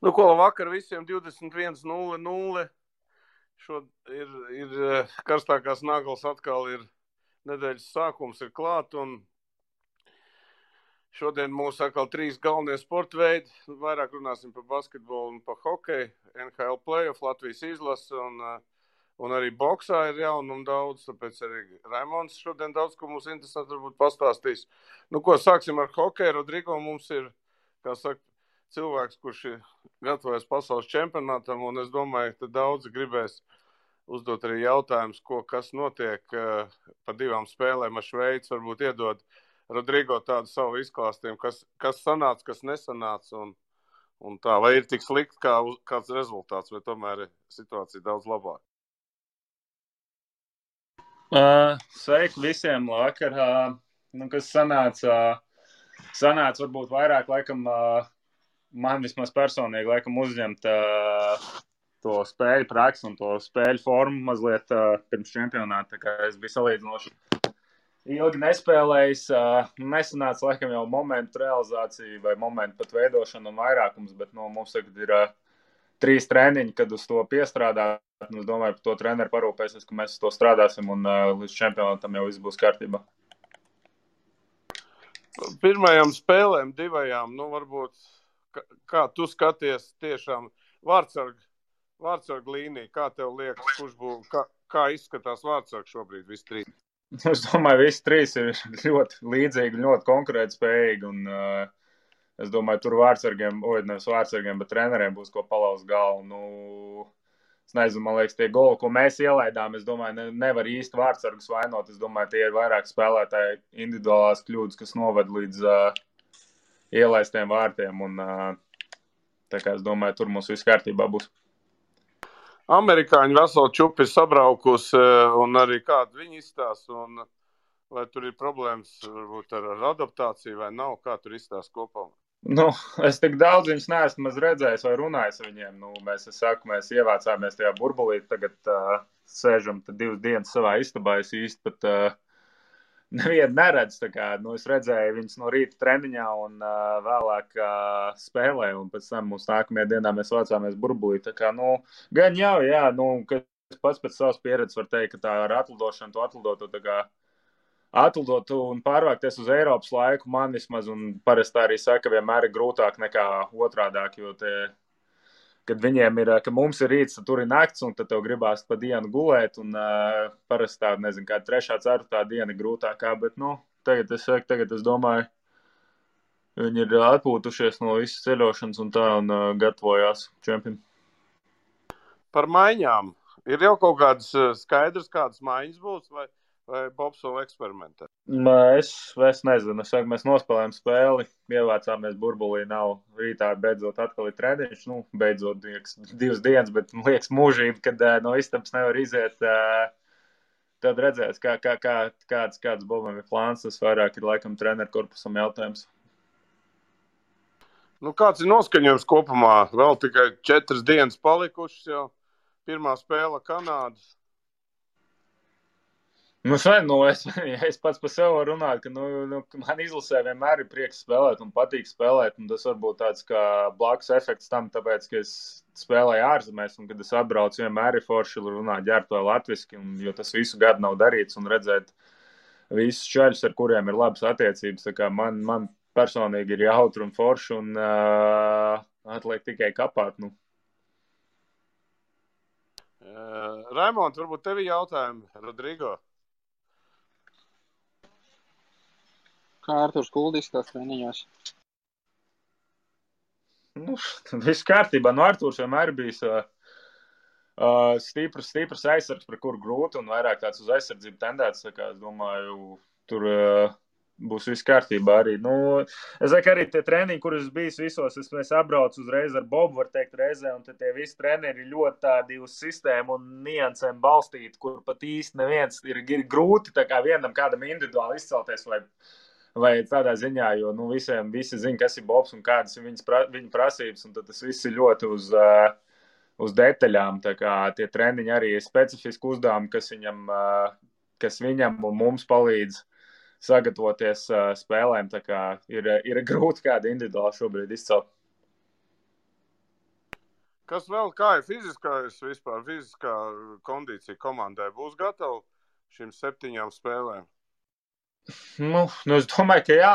Nu, ko vakar visiem 21:00. Ir karstākās naglas atkal ir nedēļas sākums ir klāt, un šodien mūs atkal 3 galvenie sporta veidi. Vairāk runāsim par basketbolu un par hokeju, NHL playoff, Latvijas izlase un arī boksā ir jaunumi daudz, tāpēc arī Raimons šodien daudz, ko mums interesanti varbūt pastāstīs. Nu, ko sāksim ar hokeju. Rodrigo mums ir, kā saka, cilvēks, kurš ir gatavojas pasaules čempionātam, un es domāju, ka daudzi gribēs uzdot arī jautājumus, kas notiek pa 2 spēlēm ar Šveici, varbūt iedod Rodrigo tādu savu izklāstījumu, kas sanāca, kas nesanāca, un tā, vai ir tik slikti kāds rezultāts, vai tomēr ir situācija daudz labāka. Sveiki visiem vakar. Kas sanāca varbūt vairāk, laikam, man vismaz personīgi, laikam, uzņemt to spēļu praksi un to spēļu formu mazliet pirms čempionāta. Tā kā es biju salīdzinoši ilgi nespēlējis. Nesanāca, laikam, jau momentu realizācija vai momentu pat veidošana un vairākums, bet mums tagad ir 3 treniņi, kad uz to piestrādāt. Es domāju, par to treneru parūpēsies, ka mēs uz to strādāsim un līdz čempionātam jau viss būs kārtībā. Pirmajām spēlēm 2, varbūt, kā tu skaties tiešām vārtsargu līniju, kā tev liekas, kā izskatās vārtsargu šobrīd visi 3? Es domāju, visi 3 ir ļoti līdzīgi, ļoti konkurētspējīgi, un es domāju, tur nevis vārtsargiem, bet treneriem būs ko palauzt galvu. Es nezinu, man liekas, tie goli, ko mēs ielaidām, es domāju, nevar īsti vārtsargus vainot. Es domāju, tie ir vairāk spēlētāji individuālās kļūdas, kas noved līdz ielaistiem vārtiem. Un, tā kā es domāju, tur mums viss kārtībā būs. Amerikāņi veselu čupi ir sabraukusi, un arī kādu viņi izstās, un vai tur ir problēmas varbūt ar adaptāciju vai nav, kā tur izstās kopā? Es tik daudz viņus neesmu redzējis vai runājis ar viņiem. Mēs ievācāmies tajā burbulī, tagad sēžam 2 dienas savā istabā. Es īsti pat nevienu neredzu. Es redzēju viņus no rīta treniņā un vēlāk spēlē, un pēc tam mums nākamajā dienā mēs vācāmies burbulī. Gan jau, kas pats pēc savas pieredzes var teikt, ka tā ar atlidošanu, to atlidot un pārvākties uz Eiropas laiku man vismaz, un parasti arī saka, vienmēr ir grūtāk nekā otrādāk, jo kad viņiem ir, ka mums ir rīts, tur ir nakts, un tad tev gribās pa dienu gulēt, un parasti tā, nezinu, kā 3., 4. diena ir grūtākā, bet, tagad es domāju, viņi ir atpūtušies no visas ceļošanas un tā, un gatavojās čempionu. Par maiņām. Ir jau kaut kādas skaidrs, kādas maiņas būs, vai Bobs vēl eksperimentē? Es nezinu. Mēs nospēlējām spēli, ievācāmies burbulī, nav rītā beidzot atkal ir treniņš. Beidzot 2 dienas, bet liekas mūžība, kad no istabas nevar iziet. Tad redzēs, kāds Bobam ir plāns. Tas vairāk ir laikam treneru korpusam jautājums. Kāds ir noskaņojums kopumā? Vēl tikai 4 dienas palikušas jau. Pirmā spēle Kanādas. Es pats par sevi varu runāt, ka man izlasē vienmēr ir prieks spēlēt un patīk spēlēt, un tas varbūt tāds kā blakus efekts tam, tāpēc, ka es spēlēju ārzemēs, un kad es atbraucu, vienmēr ir forši runāt ģērbto latviski, jo tas visu gadu nav darīts, un redzēt visus čaļus, ar kuriem ir labas attiecības, tā kā man personīgi ir jautri un forši, un atliek tikai kapāt, Raimond, varbūt tevi jautājumi, Rodrigo? Kā Arturs Kuldis tās treniņos? Viss kārtībā. Arturs vienmēr bijis stiprs aizsargs, par kuru grūti un vairāk tāds uz aizsardzību tendēts. Es domāju, tur būs viss kārtībā arī. Es saku, arī tie treniņi, kurus bijis visos, es apbraucu uzreiz ar Bobu, var teikt, reizē, un tie visi treneri ir ļoti tādi uz sistēmu un niansēm balstīti, kur pat īsti neviens ir grūti tā kā vienam kādam individuāli izcelties vai tādā ziņā, jo visi zina, kas ir Bobs un kādas ir viņa prasības, un tad tas viss ir ļoti uz detaļām. Tā kā tie treniņi arī ir specifiski uzdevumi, kas viņam un mums palīdz sagatavoties spēlēm. Tā kā ir grūti kādu individuāli šobrīd izcelt. Kas vēl, kā ir fiziskā kondīcija komandai? Būs gatava šīm 7 spēlēm? Es domāju, ka jā,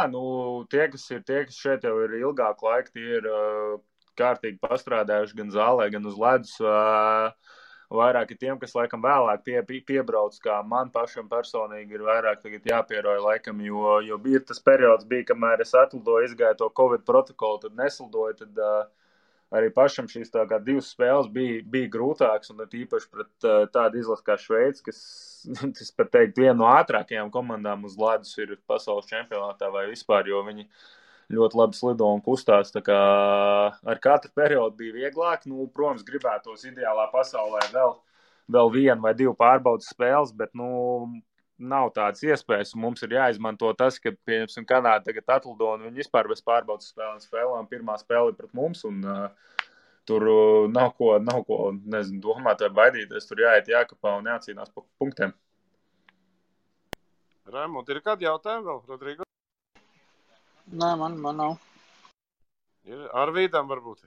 tie, kas šeit jau ir ilgāku laiku, tie ir kārtīgi pastrādājuši gan zālē, gan uz ledus. Vairāk ir tiem, kas laikam vēlāk piebrauc, kā man pašam personīgi ir vairāk tagad jāpieroja laikam, jo bija tas periods, kamēr es atlidoju, izgāju to Covid protokolu, tad neslidoju, tad arī pašam šīs tā kā 2 spēles bija grūtāks, un īpaši pret tādu izlasi kā Šveici, kas, es pat teiktu, viena no ātrākajām komandām uz ledus ir pasaules čempionātā vai vispār, jo viņi ļoti labi slido un kustās, tā kā ar katru periodu bija vieglāk. Protams, gribētos ideālā pasaulē vēl 1 vai 2 pārbaudas spēles, bet, nav tādas iespējas, un mums ir jāizmanto tas, ka, pieņemsim, Kanāda tagad atlido, un viņi vispār bez pārbaudas spēlēm. Pirmā spēle ir pret mums, un tur nav ko, nezinu, domāt vai baidīties, tur jāiet jākapā un jācīnās pa punktiem. Raimond, ir kādi jautājumi vēl, Rodrigo? Nē, man nav. Ir Arvīdam varbūt?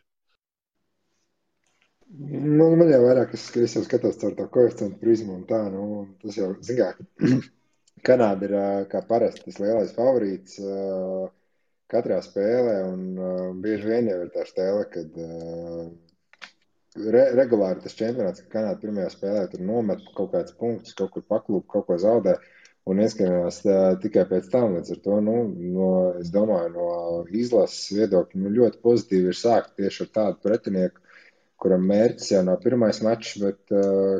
Man jau vairāk, es jau skatos caur to koeficientu prizmu un tā, tas jau, zin kā, Kanāda ir kā parasti tas lielais favorīts katrā spēlē, un bieži vien jau ir tā stēle, kad regulāri tas čempionāts, ka Kanāda pirmajā spēlē tur nomet kaut kāds punktus, kaut kur paklūp, kaut ko zaudē, un ieskatījās tikai pēc tam, līdz ar to, es domāju, no izlases viedokļa, ļoti pozitīvi ir sākt tieši ar tādu pretinieku, kuram mērķis jau nav pirmais mačs, bet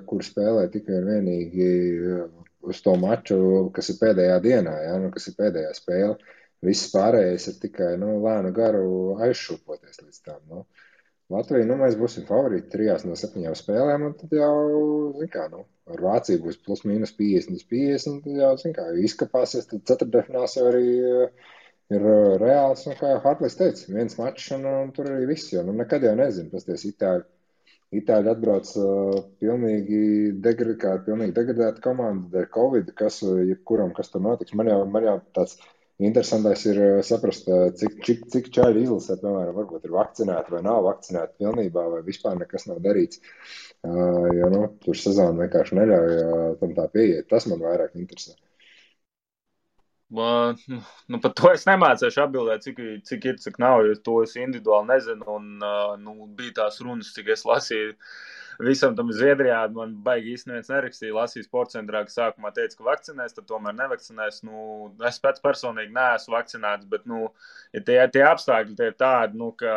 kur spēlē tikai un vienīgi uz to maču, kas ir pēdējā dienā, kas ir pēdējā spēle. Viss pārējais ir tikai, lēnu garu aizšūpoties līdz tam, Latvija, mēs būsim favorīti 3 no 7 spēlēm, un tad jau, zin kā, ar Vāciju būs plus mīnus 50, tad jau, zin kā, izkapāsies, tad ceturtdaļfināls jau arī ir reāls, un kā Hartlis teica, 1 mačs, un tur arī viss, jo, nekad jau nezinu, pasties Itāļi atbrauc pilnīgi degradēta komanda dēļ Covid, jebkuram, kas tur notiks. Man jau tāds interesantais ir saprast, cik čaļi izlasē, piemēram, varbūt ir vakcinēti vai nav vakcinēti pilnībā, vai vispār nekas nav darīts, jo, tur sezona vienkārši neļauj tam tā pieiet. Tas man vairāk interesē. Par to es nemācēšu atbildēt, cik ir, cik nav, jo to es individuāli nezinu, un bija tās runas, cik es lasīju visam tam Zviedrijā, man baigi īsti neviens nerakstīja, lasīju sportcentrā, ka sākumā teica, ka vakcinēs, tad tomēr nevakcinēs, es pēc personīgi neesmu vakcinēts, bet, ja tie apstākļi tie ir tādi, ka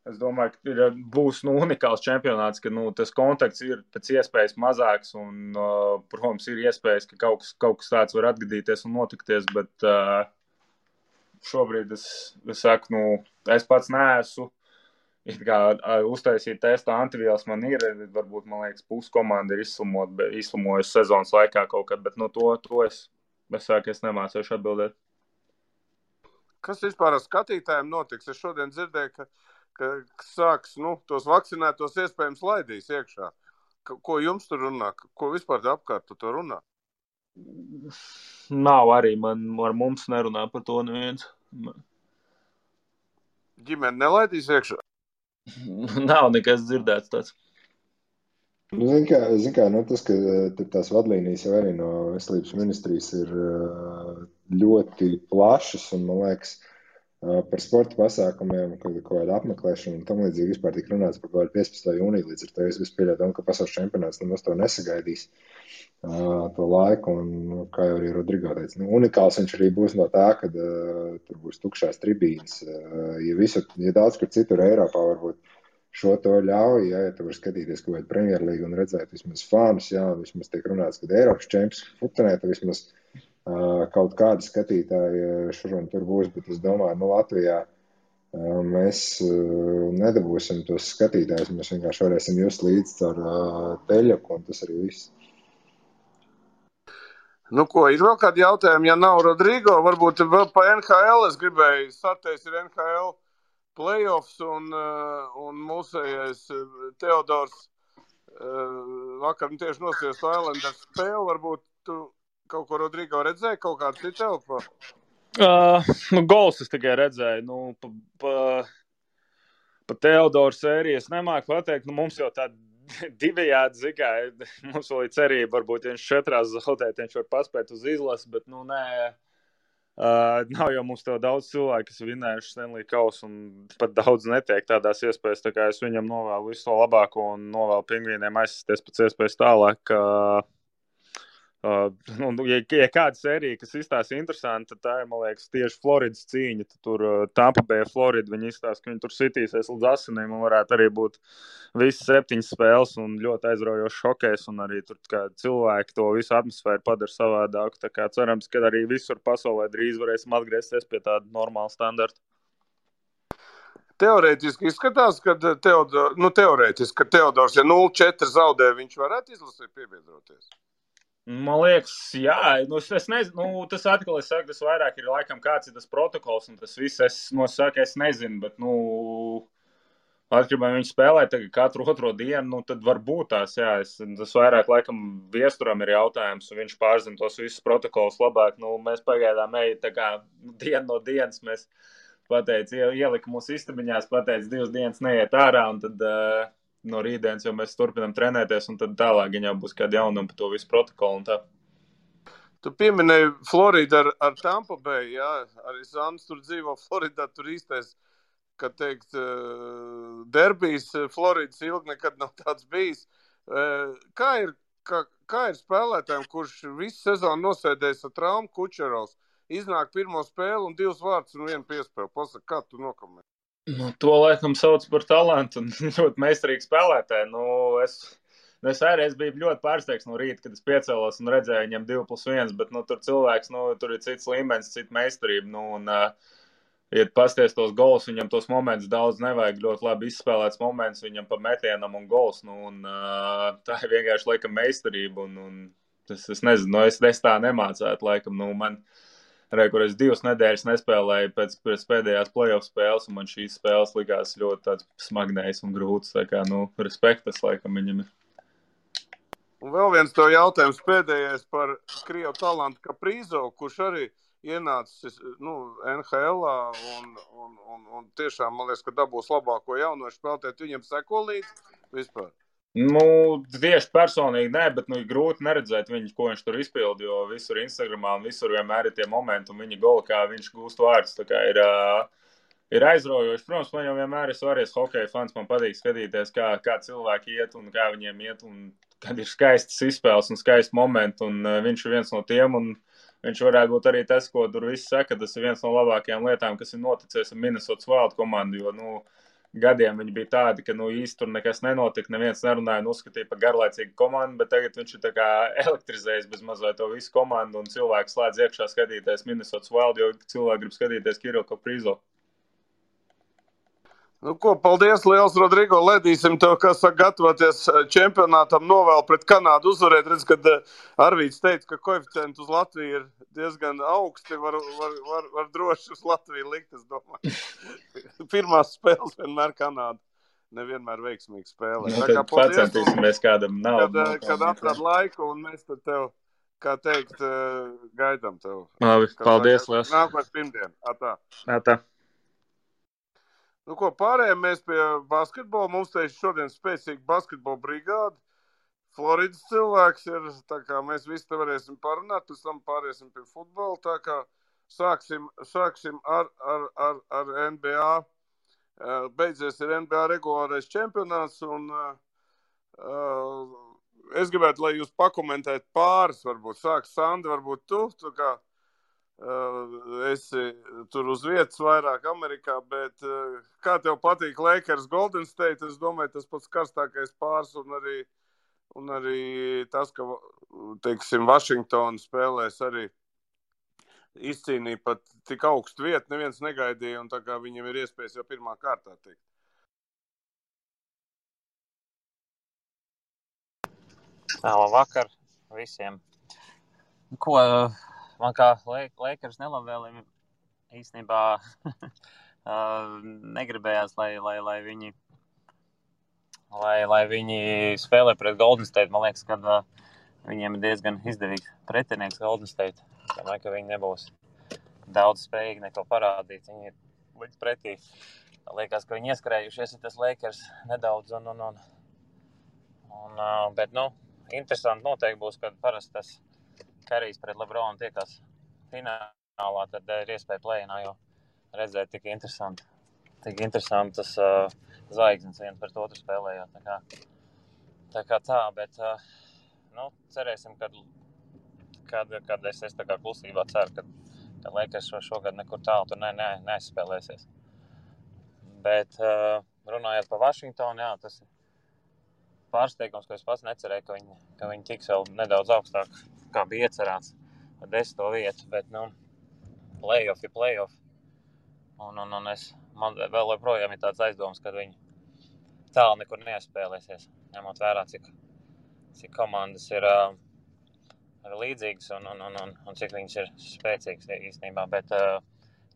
es domāju, ka būs unikāls čempionāts, ka tas kontakts ir pēc iespējas mazāks un, protams, ir iespējas, ka kaut kas tāds var atgadīties un notikties, bet šobrīd es saku, es pats neesmu, uztaisīt testu antivielas man ir, varbūt, man liekas, puskomanda ir izslimojusi sezonas laikā kaut kad, bet to es saku, es nemācēšu atbildēt. Kas vispār ar skatītājiem notiks? Es šodien dzirdēju, ka sāks, tos vakcinētos iespējams laidīs iekšā. Ko jums tur runā? Ko vispār apkārt to runā? Nav arī, ar mums nerunā par to neviens. Ģimene nelaidīs iekšā? Nav nekas dzirdēts tāds. Zin kā, tas, ka tās vadlīnijas jau arī no veselības ministrijas ir ļoti plašas, un man liekas, par sporta pasākumiem, kaut kāda apmeklēšana un tam līdzīgi vispār tika runāts par kaut kādu 15. jūniju, līdz ar to es vispār ka pasaules čempionāts nemaz to nesagaidīs to laiku, un kā jau arī Rodrigo teica, unikāls viņš arī būs no tā, kad tur būs tukšās tribīnes, ja daudz kur citur Eiropā varbūt šo to ļauj, ja tu vari skatīties kaut kādu Premjerlīgu un redzēt vismaz fānus, vismaz tiek runāts, kad Eiropas čemps futenē, tad vismaz kaut kādi skatītāji šur un tur būs, bet es domāju, Latvijā mēs nedabūsim tos skatītājus, mēs vienkārši varēsim just līdz ar teļaku, un tas arī viss. Ko, ir vēl kādi jautājumi? Ja nav Rodrigo, varbūt vēl pa NHL es gribēju sateikt, ir NHL playoffs un mūsējais Teodors vakar tieši nosties Islanders spēli, varbūt tu kaut ko Rodrigo redzēji, kaut kādu citu elpo? Gols es tikai redzēju. Pa Teodoru sēriju es nemāku pateikt, mums jau tā divējādi, zikā, mums vēl ir cerība, varbūt, ja viņš 4 zaudēt, viņš var paspēt uz izlasi, bet, nē, nav jau mums tev daudz cilvēku, kas vinējuši Stanley Kausu, un pat daudz netiek tādās iespējas, tā kā es viņam novēlu visu to labāko un novēlu Pingvīniem aizsasties pēc iespējas tālāk, ja kāda sērija, kas izstāsta interesanti, tad tā ir, man liekas, tieši Floridas cīņa. Tad tur Tampa Bay, Florida, viņi izstāsta, ka viņi tur sitīsies līdz asinīm un varētu arī būt visas 7 spēles un ļoti aizraujošs hokejs un arī tur kā cilvēki to visu atmosfēru padara savādāku. Tā kā cerams, ka arī visur pasaulē drīz varēsim atgriezties pie tāda normāla standarta. Teorētiski izskatās, ka Teodors, ja 0-4 zaudē, viņš varētu izlasīt piebiedroties. Man liekas, jā, es nezinu, tas atkal es saku, tas vairāk ir laikam kāds ir tas protokols, un tas viss, es nezinu, bet, atkarībā viņš spēlē tagad katru otro dienu, tad var būt tās, jā, tas vairāk laikam viesturam ir jautājums, un viņš pārzina tos visus protokolus labāk, mēs pagaidām tā kā dienu no dienas mēs ielika mūsu istabiņās, 2 dienas neiet ārā, un tad no rītdienas jau mēs turpinām trenēties, un tad tālāk jau būs kāda jaunuma par to visu protokolu un tā. Tu pieminēji Floridu ar Tampa Bay, jā, arī Zandis tur dzīvo Floridā, tur īstais, kad teikt, derbijs Floridas ilgi nekad nav tāds bijis. Kā ir spēlētājiem, kurš visu sezonu nosēdējis ar traumu Kučerovs, iznāk pirmo spēli un 2 vārdus un 1 piespēli? Pasaka, kā tu nokomentē? To laikam sauc par talantu un ļoti meistarīgu spēlētāju. Es biju ļoti pārsteigts no rīta, kad es piecēlos un redzēju viņam 2+1, bet tur cilvēks, tur ir cits līmenis, cita meistarība. Ja pasties tos gols, viņam tos momentus daudz nevajag, ļoti labi izspēlēts moments viņam pa metienam un gols. Tā ir vienkārši laikam meistarība. Es nezinu, es tā nemācētu laikam. Kur es 2 nedēļas nespēlēju pēc pēdējās playoff spēles, un man šīs spēles likās ļoti tāds smagnējs un grūts. Tā kā, respektas laikam viņam ir. Un vēl viens to jautājums pēdējais par Krievu talantu Kaprīzovu, kurš arī ienācis NHL-ā un tiešām, man liekas, ka dabūs labāko jaunošu spēlētāju. Viņam seko līdz vispār? Tieši personīgi nē, bet grūti neredzēt viņu, ko viņš tur izpildi, jo visur Instagramā un visur vienmēr ir tie momenti un viņa goli, kā viņš gūst vārdus. Tā kā ir aizraujoši. Protams, man jau vienmēr ir svarīgs hokeja fans, man patīk skatīties, kā cilvēki iet un kā viņiem iet, un kad ir skaistas izspēles un skaisti momenti, un viņš ir viens no tiem, un viņš varētu būt arī tas, ko tur viss saka, tas ir viens no labākajām lietām, kas ir noticies ar Minnesota Wild komandu, jo, gadiem viņi bija tādi, ka īsti tur nekas nenotika, neviens nerunāja un uzskatīja par garlaicīgu komandu, bet tagad viņš ir tā kā elektrizējis bez mazliet to visu komandu un cilvēki slēdz iekšā skatīties Minnesota Wild, jo cilvēki grib skatīties Kirilu Kaprīzovu. Paldies liels, Rodrigo, ledīsim tev, kas saka, gatavoties čempionātam, novēl pret Kanādu uzvarēt. Redz, kad Arvīds teica, ka koeficienti uz Latviju ir diezgan augsti, var droši uz Latviju likt, es domāju. Pirmās spēles vienmēr Kanāda nevienmēr veiksmīgi spēlē. Tad pacentīsimies kādam naudu. Kad atrad laiku un mēs tad tev, kā teikt, gaidām tev. Labi, paldies liels. Nākamais pirmdien. Atā. Pārējām mēs pie basketbola. Mums te šodien spēcīga basketbola brigāda. Floridas cilvēks ir, tā kā mēs visi te varēsim parunāt, pēc tam pāriesim pie futbola. Tā kā sāksim ar NBA. Beidzies ir NBA regulārais čempionāts, un es gribētu, lai jūs pakomentētu pāris, varbūt sāks Sandi, varbūt tu kā esi tur uz vietas vairāk Amerikā, bet kā tev patīk Lakers Golden State? Es domāju, tas pats karstākais pāris un arī tas, ka, teiksim, Vašingtona spēlēs arī izcīnīja pat tik augstu vietu, neviens negaidīja, un tā kā viņiem ir iespējas jau pirmā kārtā tikt. Labvakar visiem. Man kā Lakers nelabvēlim īstenībā negribējās, lai viņi spēlē pret Golden State. Man liekas, ka viņiem ir diezgan izdevīgs pretinieks Golden State. Es domāju, ka viņi nebūs daudz spējīgi neko parādīt. Viņi ir līdz pretī liekas, ka viņi ieskrējušies ir tas Lakers nedaudz. Bet, interesanti noteikti būs, kad parasti tas Karijs pret Lebronu tiekās finālā, tad ir iespēja play-inā, jo redzēt tik interesantas zvaigznes viens pret otru spēlējot. Tā kā tā, bet cerēsim, kad es tā kā klusībā ceru, ka Lakers šogad nekur tālu tur neaizspēlēsies. Bet runājot par Vašingtonu, jā, tas ir pārsteigums, ko es pats necerēju, ka viņi tiks vēl nedaudz augstāk, kā bija iecerēts, ar 10. vietu, bet, playoff ir playoff. Man vēl joprojām ir tāds aizdoms, ka viņi tālu nekur neaizspēlēsies, ņemot vērā, cik komandas ir līdzīgas un cik viņas ir spēcīgas īstenībā, bet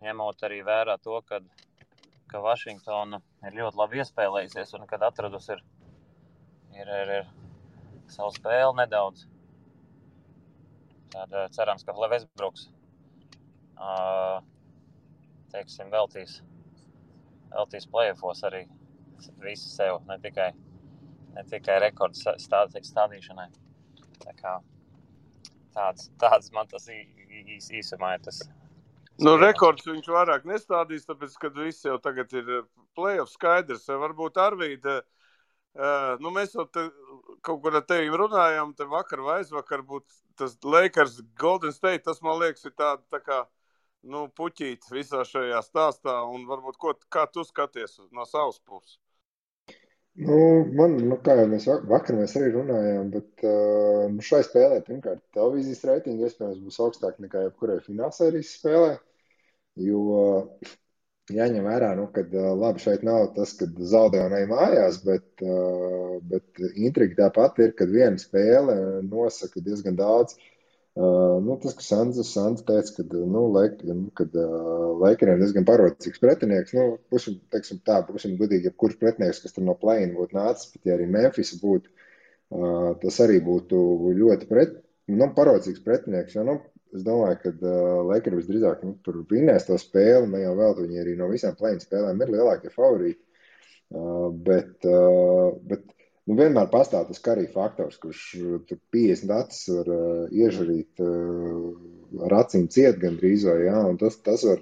ņemot arī vērā to, ka Vašingtona ir ļoti labi iespēlējusies un kad atradusi ir savu spēli nedaudz. Tad cerams, ka Westbrooks veltīs playoffos arī visu sev, ne tikai rekordu stādīšanai. Tā kā tāds man tas īsumā ir tas. Rekords viņš vairāk nestādīs, tāpēc, kad viss jau tagad ir playoff skaidrs. Varbūt Arvīda, mēs jau kaut kur ar tevi runājām, te vakar vai aizvakar būtu tas Lakers Golden State, tas man liekas ir tā kā, puķīt visā šajā stāstā, un varbūt kā tu skaties no savas puses? Kā jau vakar mēs arī runājām, bet šai spēlē, pirmkārt, televīzijas reitingi iespējams būs augstāk nekā jebkurai finālsērijas spēlē, jo jāņem vērā, kad labi šeit nav tas, kad zaudē un ej mājās, bet intriga tāpat ir, kad viena spēle nosaka diezgan daudz. Tas, ka Sands teica, kad Lakeriem diezgan parocīgs pretinieks, būsim gudīgi, ja kurš pretinieks, kas tur no play-in būtu nācis, bet ja arī Memphis būtu, tas arī būtu ļoti parocīgs pretinieks, jo, es domāju, ka Lakeri visdrīzāk tur vinēs to spēli, ne jau vēl viņi arī no visām play-in spēlēm ir lielākie favorīti, bet vienmēr pastāv tas Karī faktors, kurš tur 50 acis var iežarīt ar acīm ciet gandrīz vai, jā, un tas var,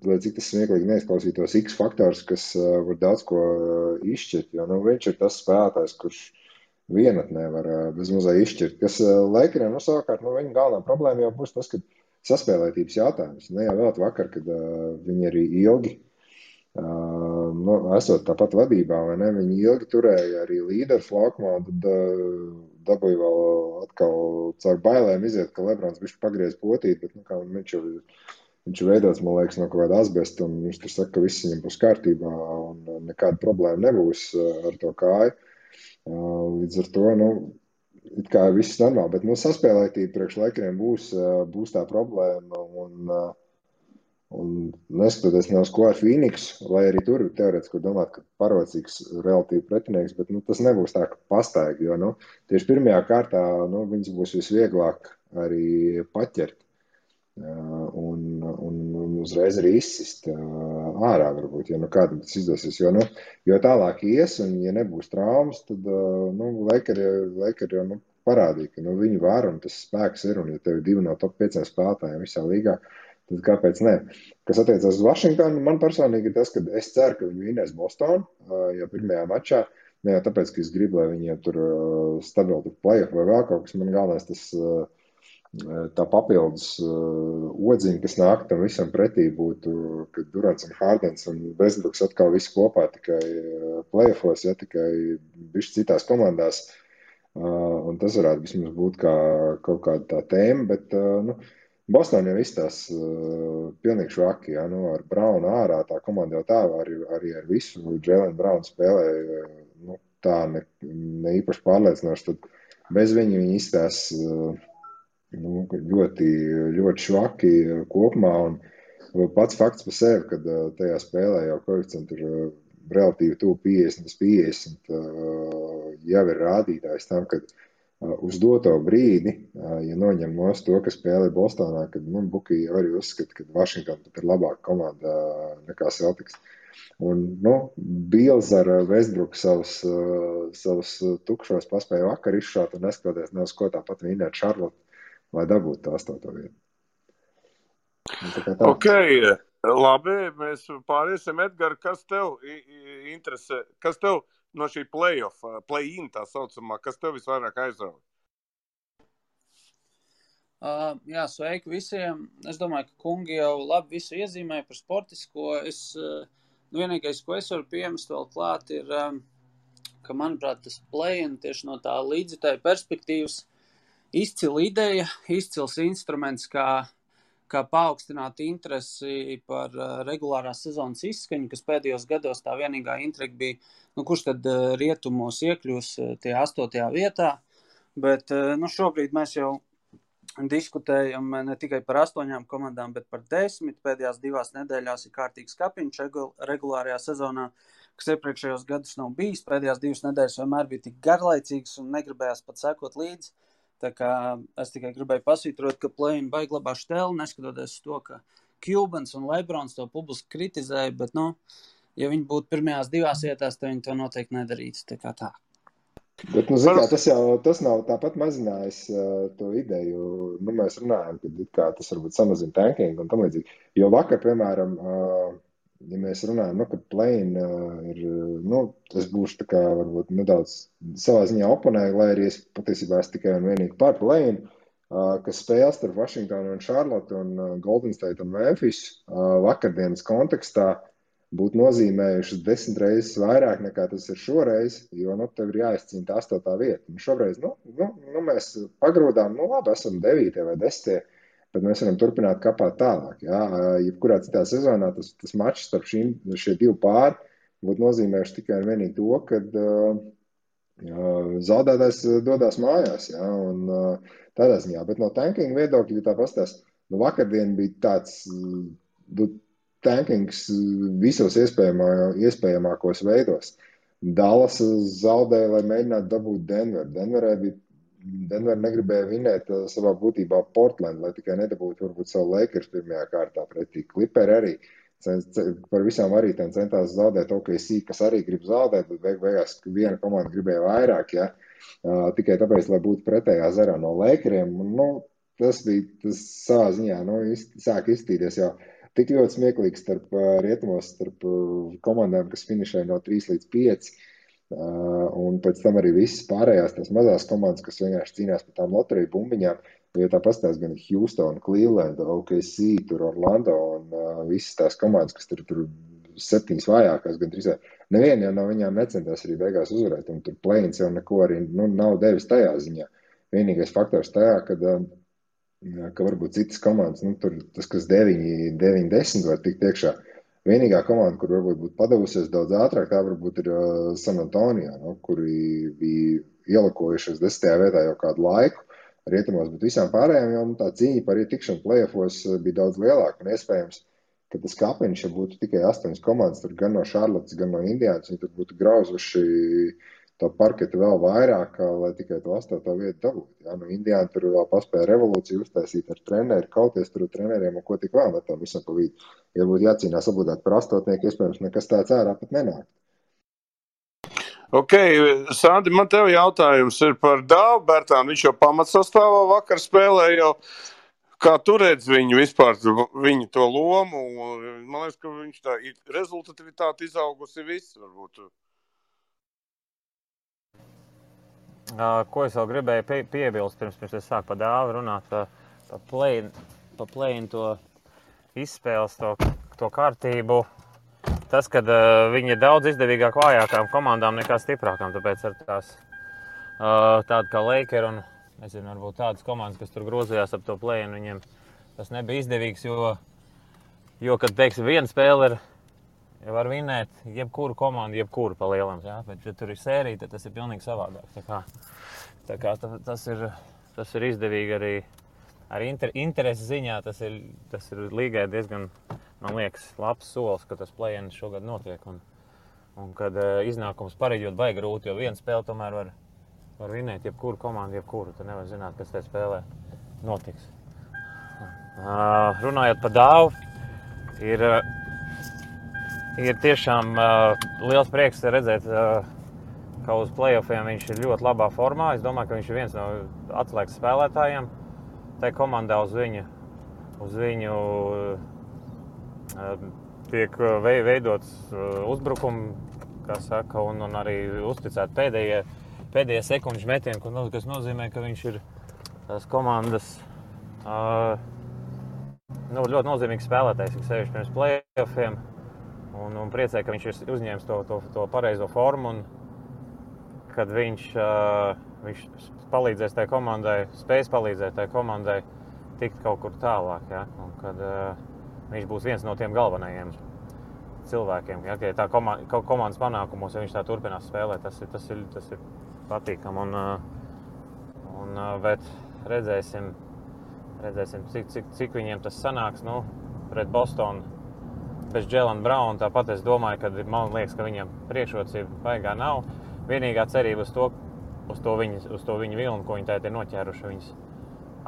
lai cik tas smieklīgi neizklausītos, X faktors, kas var daudz ko izšķirt, jo viņš ir tas spēlētājs, kurš vienatnē var bezmazā izšķirt, kas Lakeriem savukārt, viņa galvenā problēma jau būs tas, ka saspēlētības jautājums, ne jau vēl vakar, kad viņi arī ilgi esot tāpat vadībā, vai ne, viņi ilgi turēja arī līderu laukumā, tad dabūja vēl atkal caur bailēm iziet, ka Lebrons bišķi pagriez potīt, bet viņš ir veidots, man liekas, no kaut kāda asbesta, un viņš tur saka, ka viss viņam būs kārtībā, un nekāda problēma nebūs ar to kāju. Līdz ar to, it kā viss normāli, bet saspēlētība priekš Lakeriem būs tā problēma, un neskatoties ne uz ko ar Phoenix, lai arī tur teorētiski domāt, ka parocīgs relatīvi pretinieks, bet tas nebūs tā, ka pastaigi, jo tieši pirmajā kārtā viņas būs visvieglāk arī paķert un uzreiz arī izsist ārā varbūt, ja kādam tas izdosies, jo tālāk ies, un ja nebūs traumas, tad Lakeri jau parādīja, ka viņi var, un tas spēks ir, un ja tev ir 2 no top 5 spēlētājiem visā līgā, tad kāpēc ne? Kas attiecās uz Vašingtonu, man personīgi ir tas, ka es ceru, ka viņi vinēs Bostonu, ja pirmajā mačā, ne jau tāpēc, ka es gribu, lai viņi tur stabili playoff vai vēl kaut kas, man galvenais tas tā papildus odziņa, kas nāk tam visam pretī būtu, kad Durants un Hardens un Westbrooks atkal visi kopā tikai playoffos, ja tikai bišķi citās komandās, un tas varētu vismaz būt kā kaut kāda tā tēma, bet, Boston jau izstās pilnīgi švaki, ja, ar Brownu ārā, tā komanda jau tā arī ar visu Jalen Brownu spēlēja, tā ne īpaši pārliecinoši, tad bez viņi izstās ļoti, ļoti švaki kopumā, un pats fakts par sevi, kad tajā spēlē jau koeficienti ir relatīvi tuvu 50-50, jau ir rādītājs tam, kad uz doto brīdi, ja noņem nost to, ka spēlē Bostonā, kad Buki arī uzskata, ka Washington pat ir labāka komanda nekā Celtics. Un, Bills ar Westbrook savus tukšos paspēja vakar izšaut un neskatoties ne uz ko tāpat vinēt Charlotte, lai dabūtu to 8. vietu. Ok, labi, mēs pāriesim. Edgar, kas tev interesē, kas tev no šī play-in tā saucamā, kas tev visvairāk aizrauja? Jā, sveiki visiem. Es domāju, ka kungi jau labi visu iezīmēja par sportisko. Vienīgais, ko es varu piemest vēl klāt, ir, ka, manuprāt, tas play-in tieši no tā līdzjutēja perspektīvas izcila ideja, izcils instruments, kā paaugstināt interesi par regulārās sezonas izskaņu, kas pēdējos gados tā vienīgā intriga bija, kurš tad rietumos iekļūs tie 8. vietā. Bet šobrīd mēs jau diskutējam ne tikai par 8 komandām, bet par 10. Pēdējās 2 nedēļās ir kārtīgs kapiņš regulārajā sezonā, kas iepriekšējos gadus nav bijis. Pēdējās 2 nedēļas vienmēr bija tik garlaicīgas un negribējās pat sekot līdzi. Tā kā es tikai gribēju pasvītrot, ka play-in baigi labā štēli, neskatoties to, ka Cubans un Lebrons to publiski kritizēja, bet, ja viņi būtu pirmajās 2 vietās, tad viņi to noteikti nedarītu. Tā kā tā. Bet, tas nav tāpat mazinājis to ideju. Mēs runājam, ka tas varbūt samazina tanking un tam līdzīgi. Jo vakar, piemēram, ja mēs runājam, ka play-in ir, es būšu tā kā varbūt nedaudz savā ziņā oponēju, lai arī es patiesībā tikai un vienīgi par play-in, kas spēles starp Washington un Charlotte un Golden State un Memphis vakardienas kontekstā būtu nozīmējušas 10 reizes vairāk nekā tas ir šoreiz, jo tev ir jāizcīna tā 8. vieta. Un šoreiz, mēs pagrūdām, labi, esam 9. vai 10. bet mēs varam turpināt kapāt tālāk. Jā. Jebkurā citā sezonā tas mačs starp šie 2 pāri būtu nozīmējuši tikai un vienīgi to, kad zaudētājs dodās mājās. Jā, un tādā ziņā. Bet no tanking viedokļa, ja tā pastās, vakardien bija tāds tankings visos iespējamākos veidos. Dallas zaudēja, lai mēģinātu dabūt Denveru. Denver negribēja vinēt savā būtībā Portland, lai tikai nedabūtu varbūt savu Lakers pirmajā kārtā pretī. Clipperi arī par visām arī centās zaudēt OKC, kas arī grib zaudēt, bet beigās viena komanda gribēja vairāk, ja? Tikai tāpēc, lai būtu pretējā zarā no Lakeriem. Tas savā ziņā sāk izstīties jau tik ļoti smieklīgs starp komandām, kas finišē no 3 līdz 5. Un pēc tam arī visas pārējās tās mazās komandas, kas vienkārši cīnās par tām loteriju bumbiņām, jo tā pastāst gan Houston, Cleveland, OKC, tur Orlando un visas tās komandas, kas tur 7 vājākās, gan 3. Neviena jau no viņām necentās arī beigās uzvarēt, un tur play-ins jau neko arī nav devis tajā ziņā. Vienīgais faktors tajā, ka varbūt citas komandas, tur tas, kas 9-10 var tikt iekšā. Vienīgā komanda, kur varbūt būtu padavusies daudz ātrāk, tā varbūt ir San Antonio, kuri bija ielakojušies 10. vietā jau kādu laiku rietumos, bet visām pārējām jau tā cīņa par ietikšanu play-offos bija daudz lielāka un iespējams, ka tas kapiņš, ja būtu tikai 8 komandas, tur gan no Charlottes, gan no Indiānas, viņi tur būtu grauzuši to parketu vēl vairāk, lai tikai to 8. vietu dabūtu. Ja? Indiāna tur vēl paspēja revolūciju uztaisīt ar treneri, kauties tur ar treneriem un ko tik vēl metam visam pa vidu. Ja būtu jācīnās obligāti par 8, iespējams nekas tāds ārā pat nenāk. Ok, Sandi, man tev jautājums ir par Dāvu Bērtānu. Viņš jau pamatsastāvā vakar spēlēja jau. Kā tu redz viņu vispār, viņu to lomu? Man liekas, ka viņš tā rezultativitāte izaugusi viss, varbūt. Ko es vēl gribēju piebilst, pirms es sāku par Dāvu runāt, pa play-in to izspēles, to kārtību. Tas, kad viņi ir daudz izdevīgāk vājākām komandām nekā stiprākām, tāpēc ar tādu kā Laker un, nezinu, varbūt tādas komandas, kas tur grozījās ap to play-in, viņiem tas nebija izdevīgs, jo kad, teiksim, viena spēle ir, ja var vinēt jebkuru komandu, jebkuru pa lielam, jā, bet, ja tur ir sērija, tad tas ir pilnīgi savādāk. Tā kā tas ir izdevīgi arī interesi ziņā, tas ir līgai diezgan, man liekas, labs solis, ka tas play-in šogad notiek, un kad iznākums pareģot baigi grūti, jo viena spēle tomēr var vinēt jebkuru komandu, jebkuru. Tu nevar zināt, kas tajā spēlē notiks. Runājot par Dāvu, ir tiešām liels prieks redzēt, ka uz playoffiem viņš ir ļoti labā formā. Es domāju, ka viņš ir viens no atslēgas spēlētājiem. Tā komandā uz viņu tiek veidots uzbrukumi, kā saka, un arī uzticēt pēdējie sekundžu metieni, kas nozīmē, ka viņš ir tās komandas ļoti nozīmīgs spēlētājs, kas sevišķi pirms playoffiem, un priecē, ka viņš ir uzņēmis to pareizo formu, un kad viņš palīdzēs tai komandai, spēs palīdzēt tai komandai tikt kaut kur tālāk, ja? Un kad viņš būs viens no tiem galvenajiem cilvēkiem, ja? Ja tā komandas panākumos, ja viņš tā turpinās spēlēt, tas ir patīkam, bet redzēsim, cik viņiem tas sanāks, pret Bostonu bez Jaylen Brown. Tāpat es domāju, ka man liekas, ka viņam priekšrocība baigā nav. Vienīgā cerība uz to viņu vilnu, ko viņi tagad ir noķēruši, viņus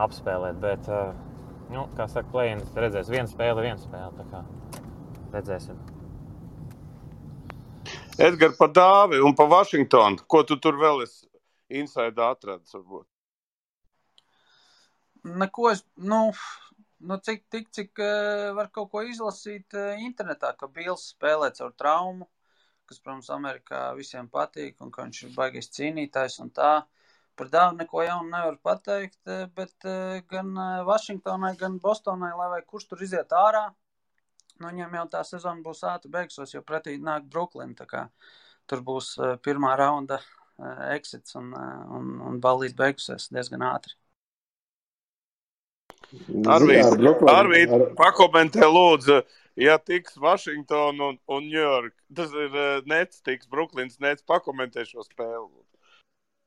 apspēlēt. Bet, kā saka, play-in redzēs viena spēle, tā kā redzēsim. Edgar, pa Dāvi un pa Vašingtonu, ko tu tur vēl esi inside atradis, varbūt? Neko cik var kaut ko izlasīt internetā, ka Bills spēlē caur traumu, kas, protams, Amerikā visiem patīk, un ka viņš ir baigais cīnītājs un tā. Par Dāvu neko jaunu nevar pateikt, bet gan Vašingtonai, gan Bostonai, lai vai kurš tur iziet ārā, viņiem jau tā sezona būs ātri beigsies, jo pretī nāk Brooklyn, tā kā tur būs pirmā raunda exits un ballīt beigusies diezgan ātri. Arvīd, pakomentē lūdzu, ja tiks Washington un New York, tas ir Nets, tiks Brooklyns Nets, pakomentē šo spēli.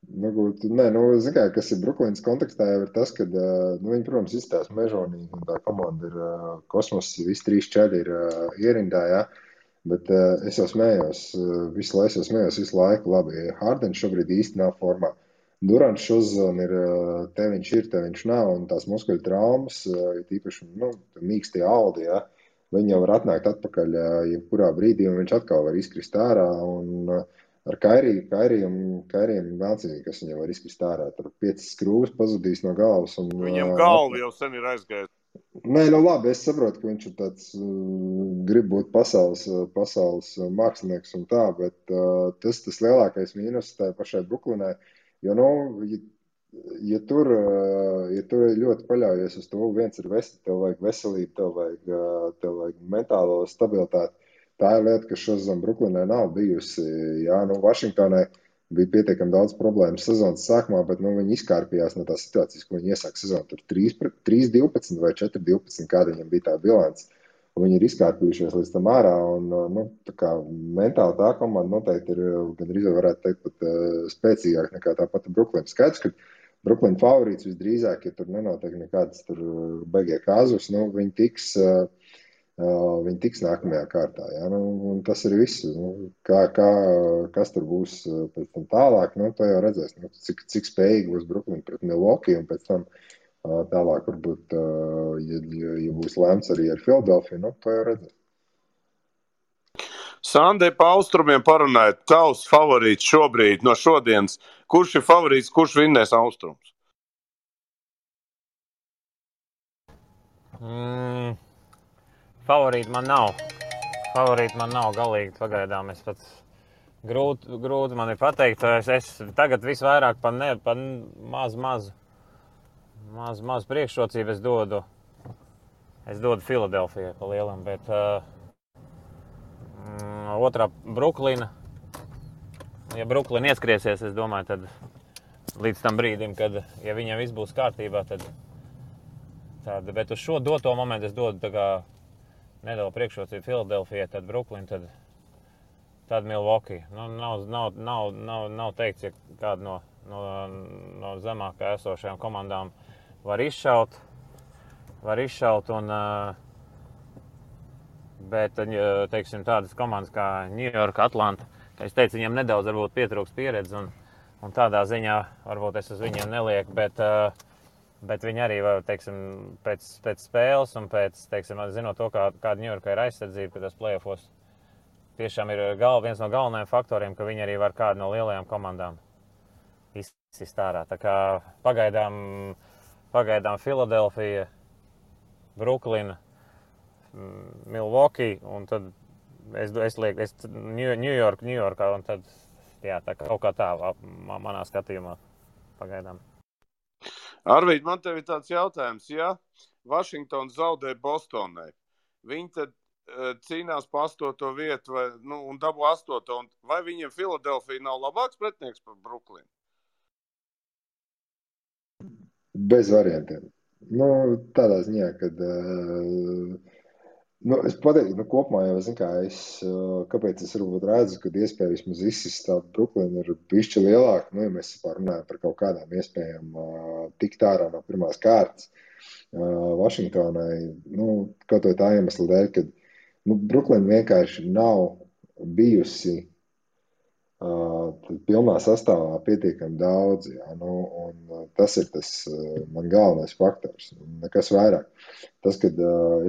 Kas ir Brooklyns kontekstā, jau ir tas, ka viņi, protams, izstās mežonīgi, un tā komanda ir kosmos, visi 3-4 ir ierindā, ja? Bet es jau smējos visu laiku, labi, Hardens šobrīd īsti nav formā. Durants šozona ir, te viņš nav, un tās muskuļu traumas, tīpaši, mīkstie audi, ja, viņi jau var atnākt atpakaļ, jebkurā brīdī, un viņš atkal var izkrist ārā, un ar Kairiem vēlcīgi, kas viņam var izkrist ārā, tur 5 skrūves pazudīs no galvas. Un, viņam galva jau sen ir aizgājis. Nē, labi, es saprotu, ka viņš ir tāds, grib būt pasaules mākslinieks un tā, bet tas lielākais mīnus tā pašai Brooklynai. Jo, ja tur ļoti paļaujies uz to, viens ir tev vajag veselību, tev vajag mentālo stabilitāti. Tā ir lieta, kas šodien Brooklynai nav bijusi. Jā, Vašingtonai bija pietiekami daudz problēmu sezonas sākumā, bet viņi izkārpījās no tās situācijas, ko viņi iesāk sezonu. Tur 3-12 vai 4-12, kāda viņam bija tā bilants. Viņi ir izkārpījušies līdz tam ārā, un tā kā mentāli tā komanda noteikti ir, gandrīz varētu teikt, pat spēcīgāk nekā tā pati Brooklyn. Skaidrs, ka Brooklyn favorīts visdrīzāk, ja tur nenotiek nekādas tur baigie kāzus, viņi tiks nākamajā kārtā. Ja? Un tas ir viss. Kas tur būs pēc tam tālāk, to jau redzēs. Cik spējīgi būs Brooklyn pret Milwaukee, un pēc tam tālāk varbūt, ja būs lēmts arī ar Philadelphiju, to jau redzēs. Sandē, pa austrumiem parunājot, tavs favorīts šobrīd no šodienas. Kurš ir favorīts, kurš vinnēs austrums? Favorīti man nav galīgi pagaidām. Es pats grūti man ir pateikt. Es tagad visvairāk pa maz priekšrocību es dodu Filadelfijai pa lielam, bet otrā Brooklyna. Ja Brooklyna ieskriesies, es domāju, tad līdz tam brīdim, kad, ja viņam viss būs kārtībā, tad bet uz šo doto momentu es dodu tā kā nedaudz priekšrocību Filadelfijai, tad Brooklyna, tad Milwaukee. Nav teikts, ja kāda no zemākā esošajām komandām var izšaut, bet, teiksim, tādas komandas kā New York, Atlanta, kā es teicu, viņam nedaudz varbūt pietrūks pieredze, Un tādā ziņā varbūt es uz viņiem nelieku, bet viņi arī, teiksim, pēc spēles un pēc, teiksim, zinot to, kāda Ņujorka ir aizsardzība, ka tas playoffos tiešām ir viens no galvenajiem faktoriem, ka viņi arī var kādu no lielajām komandām izsist ārā. Tā kā pagaidām Filadelfija, Bruklina, Milwaukee un tad es lieku Ņujorkā un tad, jā, tā kaut kā tā manā skatījumā pagaidām. Arvīd, man tev ir tāds jautājums, ja Vašingtons zaudē Bostonai, viņi tad cīnās pa 8. vietu un dabū 8. un vai viņiem Filadelfija nav labāks pretinieks par Bruklinu? Bez variantiem. Tādā ziņā, kad es pateiktu, kopumā jau zinu, kāpēc es varbūt redzu, kad iespēja vismaz izsist tādu Bruklinu ir bišķi lielāka, ja mēs runājam par kaut kādām iespējām tikt ārā no pirmās kārtas Vašingtonai, kaut vai tā iemesla dēļ, kad Bruklina vienkārši nav bijusi pilnā sastāvā pietiekami daudz, un tas ir tas man galvenais faktors, nekas vairāk. Tas, kad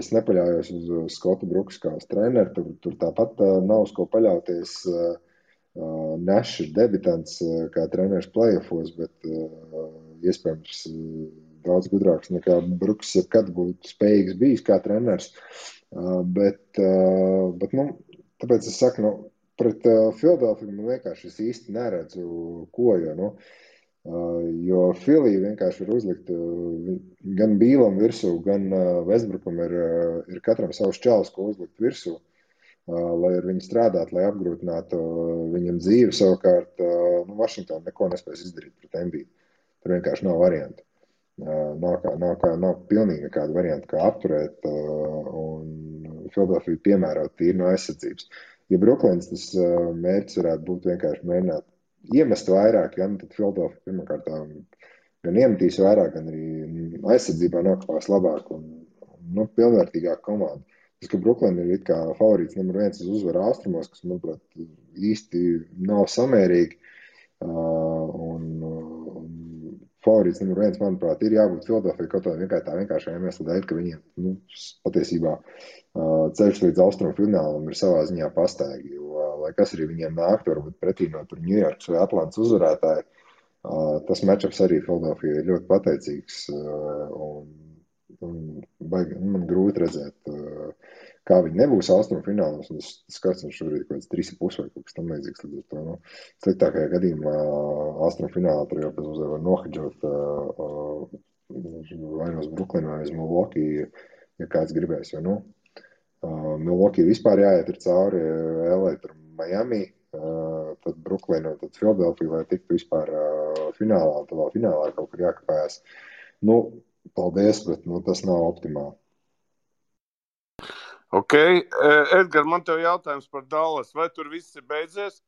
es nepaļaujos uz Skotu Bruks kā uz treneru, tur tāpat nav uz ko paļauties. Nešs ir debitants kā treneris playoffos, bet iespējams daudz gudrāks nekā Bruks jebkad būtu spējīgs bijis kā treneris. Bet tāpēc es saku, pret Filadelfiju man vienkārši es īsti neredzu ko, jo Filija vienkārši var uzlikt gan Bīlam virsū, gan Westbrookam ir katram savs čalis, ko uzlikt virsū, lai ar viņu strādāt, lai apgrūtinātu viņam dzīvi. Savukārt Vašingtona neko nespēs izdarīt pret Embiidu. Tur vienkārši nav variantu. Nav pilnīgi nekāda varianta, kā apturēt un Filadelfiju piemērot tīri no aizsardzības. Ja Bruklins tas mērķis varētu būt vienkārši mēģināt iemest vairāk, tad Filadelfija pirmkārt gan iemetīs vairāk, gan arī aizsardzībā nokļūs labāk un pilnvērtīgāk komanda. Tas, ka Bruklina ir it kā favorīts numur 1 uz uzvaru austrumos, kas, manuprāt, īsti nav samērīgi, un favorīts numur 1, manuprāt, ir jābūt Filadelfijai kaut tā vienkāršā iemesla dēļ, ka viņiem patiesībā ceļš līdz austrumu finālam ir savā ziņā pastaigi, jo, lai kas arī viņiem nāktu, varbūt pretī no tur Ņujorkas vai Atlantas uzvarētāji, tas matchups arī Filadelfijai ir ļoti pateicīgs, un man grūti redzēt, kā viņi nebūs austrumu finālos, un tas skats viņš šobrīd kaut kāds 3,5 vai kaut kas tam līdzīgs, līdz ar to, sliktākajā gadījumā austrumu finālā tur jau pēc uzvar var nohedžot vai no Bruklinu vai uz Milwaukee, ja kāds gribēs, jo, Milwaukee vispār jāiet ir cauri LA, tur Miami, tad Bruklina, tad Filadelfija, lai tiktu vispār finālā, un tad vēl finālā kaut kur jākapājās. Paldies, bet tas nav optimāli. Ok, Edgar, man tev jautājums par Dallas. Vai tur viss ir beidzies,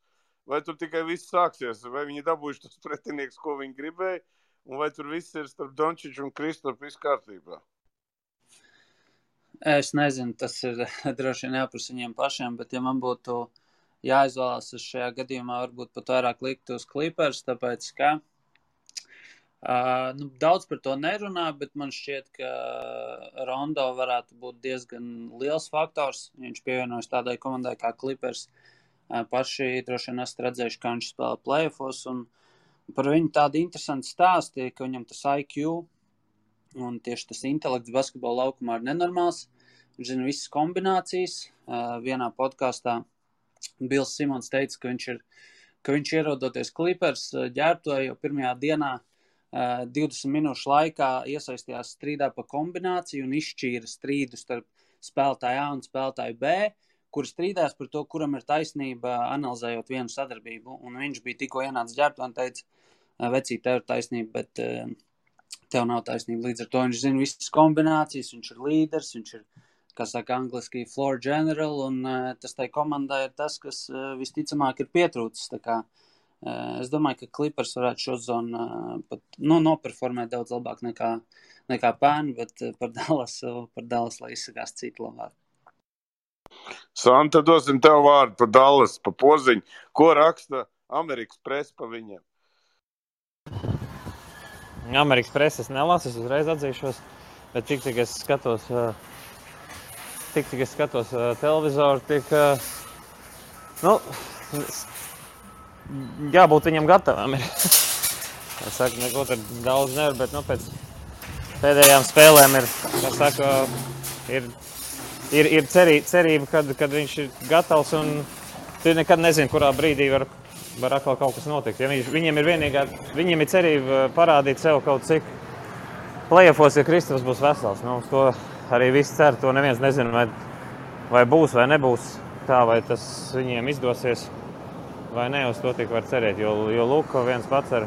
vai tur tikai viss sāksies? Vai viņi dabūjuši tos pretinieks, ko viņi gribēja, un vai tur viss ir starp Dončiču un Kristofu viss kārtībā? Es nezinu, tas ir droši vien jāprasa viņiem pašiem, bet ja man būtu jāizvēlās uz šajā gadījumā, varbūt pat vairāk likt uz Clippers, tāpēc, ka daudz par to nerunā, bet man šķiet, ka Rondo varētu būt diezgan liels faktors. Viņš pievienojas tādai komandai kā Clippers. Paši droši vien esat redzējuši, kā viņš spēlē playoffos, un par viņu tādu interesantu stāstu, ka viņam tas IQ un tieši tas intelekts basketbola laukumā ir nenormāls. Viņš zina visas kombinācijas. Vienā podkastā Bils Simons teica, ka viņš ierodoties Clippers ģērbtuvē jau pirmajā dienā 20 minūšu laikā iesaistījās strīdā pa kombināciju un izšķīra strīdu starp spēlētāju A un spēlētāju B, kuri strīdās par to, kuram ir taisnība, analizējot vienu sadarbību. Un viņš bija tikko ienācis ģērbtuvē un teica, vecīt, tev ir taisnība, bet tev nav taisnība. Līdz ar to viņš zina visas kombinācijas, viņš ir līderis, viņš ir, kā saka angliski, floor general, un tas tai komandai ir tas, kas visticamāk ir pietrūcis. Tā kā es domāju, ka Clippers varētu šo zonu pat noperformēt daudz labāk nekā pērn, bet par Dallas lai izsakās citu labāk. Santa, dosim tev vārdu par Dallas, pa poziņu. Ko raksta Amerikas presa pa viņiem? Amerikas preses nelasu, es uzreiz atzīšos, bet tik es skatos, televizoru, jābūt viņam gatavam. Es saku, neko tur daudz nevar, bet pēc pēdējām spēlēm ir cerība, kad viņš ir gatavs, un tu nekad nezini, kurā brīdī var atkal kaut kas notikt. Ja viņiem ir cerība parādīt sev kaut cik play-offos, ja Kristaps būs vesels. Uz to arī viss cer, to neviens nezina, vai būs vai nebūs tā, vai tas viņiem izdosies vai ne, uz to tik var cerēt, jo Luka viens pats ar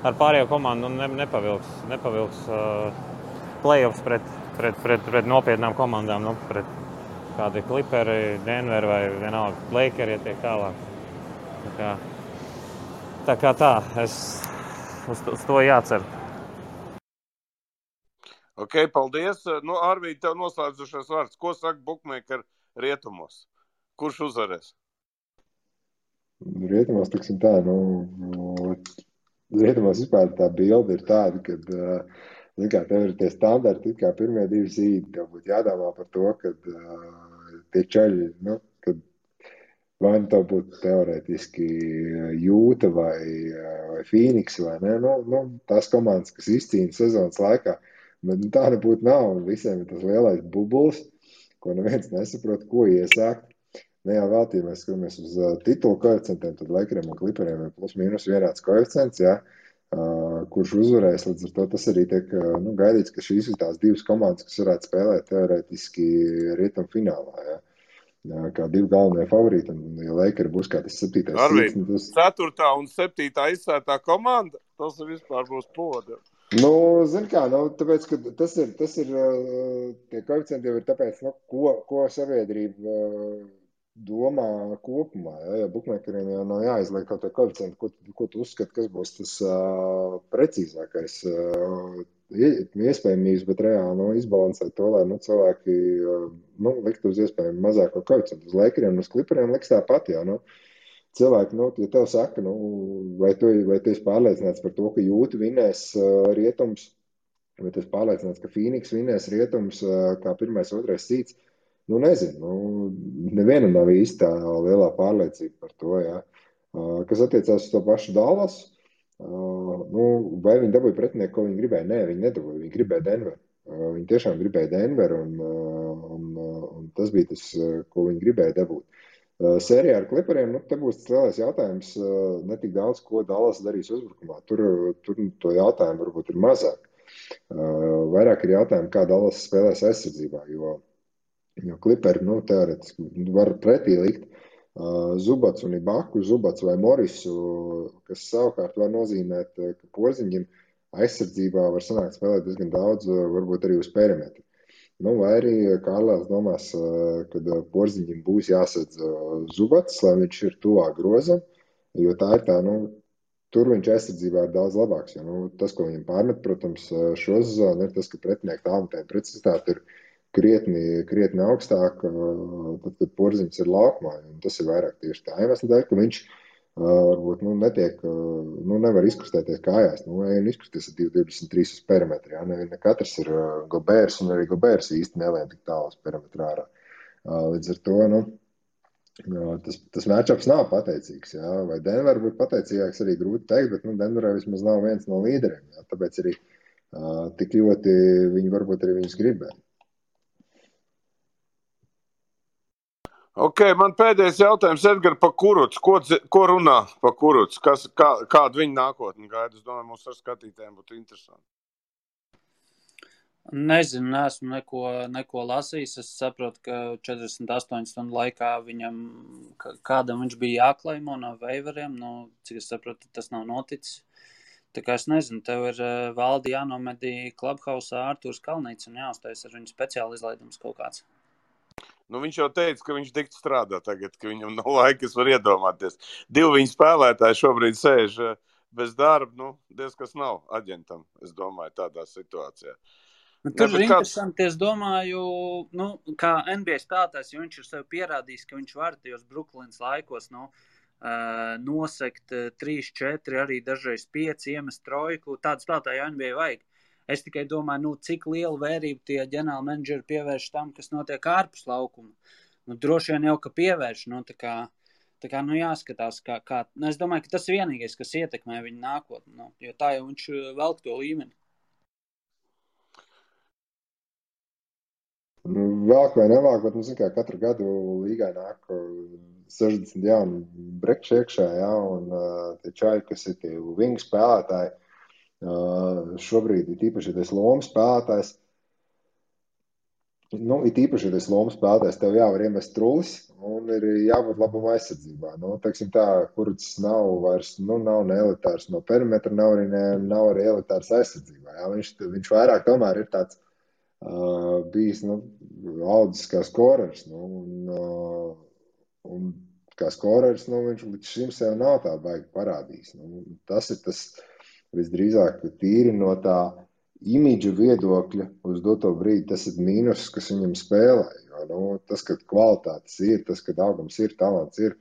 pārējo komandu nepavilks play-offs pret nopietnām komandām, pret kādi Clipperi, Denver vai vienalga Lakeri, ja tiek tālāk. Tā kā uz to jācer. Ok, paldies. Arvīd, tev noslēdzušais vārds. Ko saka bookmaker rietumos? Kurš uzvarēs? Rietumos, tiksim tā, rietumos vispār tā bilde ir tāda, kad, tev ir tie standarti, kā pirmie 2 zīdi, tev būtu jādomā par to, kad tie čaļi, kad vai tev būtu teorētiski Jūta vai Phoenix vai ne, tās komandas, kas izcīna sezonas laikā, bet tā nebūtu nav, un visiem ir tas lielais bubulis, ko neviens nesaprot, ko iesākt. Ne jau veltī mēs skatāmies uz titulu koeficientiem, tad Lakeriem un Clipperiem ir plus mīnus vienāds koeficients, kurš uzvarēs, līdz ar to tas arī tiek gaidīts, ka šīs ir tās 2 komandas, kas varētu spēlēt teorētiski rietumfinālā, kā 2 galvenie favorīti, un ja Lakeri būs kā tas 7. Arvīd, 4. un 7. izsētā komanda, tas vispār būs poda. Zin kā, tāpēc, ka tas ir, tie koeficienti jau ir tāpēc, ko sabiedrība domā kopumā, ja bookmakeriem jau nav jāizliek kaut tie koeficienti, ko tu uzskati, kas būs tas precīzākais iespējamības, bet reāli izbalansēt to, lai cilvēki likt uz iespējami mazāko koeficientu. Uz Lakeriem un uz Clipperiem liks tāpat, cilvēki, ja tev saka, vai tu esi pārliecināts par to, ka Jūta vinnēs rietums, vai tu esi pārliecināts, ka Phoenix vinnēs rietums kā 1. 2. zīds, nezinu, nevienam nav īsti tā lielā pārliecība par to, Kas attiecās uz to pašu Dallas, vai viņi dabūja pretinieku, ko viņi gribēja? Nē, viņi nedabūja, viņi gribēja Denveru. Viņi tiešām gribēja Denveru, un tas bija tas, ko viņi gribēja dabūt. Sērijā ar Clipperiem, te būs tas lielais jautājums, ne tik daudz, ko Dallas darīs uzbrukumā. Tur to jautājumu varbūt ir mazāk. Vairāk ir jautājumi, kā Dallas spēlēs aizsardzībā, jo Clipperi, teorētiski var pretī likt Zubats un Ibaku, Zubats vai Morisu, kas savukārt var nozīmēt, ka Porziņģim aizsardzībā var sanākt spēlēt diezgan daudz, varbūt arī uz perimetru. Vai arī Kārlēls domās, kad Porziņģim būs jāsadz Zubats, lai viņš ir tuvāk grozam, jo tā ir tā, tur viņš aizsardzībā ir daudz labāks. Jo, tas, ko viņam pārmet, protams, šo sezonu, ir tas, ka pretinieku tālmetēju precizitāte ir krietni augstāk, tad, kad Porziņš ir laukumā. Tas ir vairāk tieši tā iemesla dēļ, ka viņš varbūt netiek, nevar izkustēties kājās. Ejam izkusties ar 2,23 uz perimetru. Ne katrs ir Gobērs, un arī Gobērs īsti nelien tik tālu uz perimetru ārā. Līdz ar to, tas matchups nav pateicīgs. Vai Denver būtu pateicīgāks, arī grūti teikt, bet Denverā vismaz nav viens no līderiem. Tāpēc arī tik ļoti viņi varbūt arī viņus gribēja. Ok, man pēdējais jautājums, Edgar, par Kurucu. Ko runā par Kurucu? Kādu viņa nākotni gaida? Es domāju, mums ar skatītājiem būtu interesanti. Nezinu, neesmu neko lasījis. Es saprotu, ka 48 stundu laikā kādam viņš bija jāklaimo no veiveriem. Cik es saprotu, tas nav noticis. Tā kā es nezinu, tev ir valdi jānomedī Clubhouse Ārturs Kalnīts un jāuztais ar viņu speciāli izlaidums kaut kāds. Viņš jau teica, ka viņš tik strādā tagad, ka viņam nav laika, es varu iedomāties. 2 viņa spēlētāji šobrīd sēž bez darba, diezkas nav aģentam, es domāju, tādā situācijā. Tur ir interesanti, es domāju, kā NBA spēlētājs, jo viņš ir sev pierādījis, ka viņš var tajos Brooklynas laikos, nosekt 3-4, arī dažreiz 5, iemest trojku. Tādu spēlētāju NBA vajag. Es tikai domāju, cik lielu vērību tie ģenerāli menedžeri pievērš tam, kas notiek ārpus laukuma. Droši vien jau, ka pievērš, tā kā jāskatās, kā. Es domāju, ka tas ir vienīgais, kas ietekmē viņu nākotni, jo tā jau viņš velk to līmeni. Velk vai nevelk, bet, zin kā, katru gadu līgai nāk 60 jauni brekši iekšā, ja, un tie čaļi, kas ir tie wing spēlētāji, šobrīd ir īpaši tas lomu spēlētājs. It īpaši tas lomu spēlētājs, tev jāvar iemest trullis un ir jābūt labuma aizsardzībā. Teiksim tā, kurds nav vairs, nav ne elitārs no perimetra, nav arī elitārs aizsardzībā. Ja. Viņš vairāk tomēr ir tāds bijis, audzis kā skorers, un kā skorers, viņš līdz šim sev nav tā baigi parādījis. Tas ir tas visdrīzāk tīri no tā imidža viedokļa uz doto brīdi, tas ir mīnus, kas viņam spēlē. Jo, tas, ka kvalitātes ir, tas, ka augums ir, talants ir,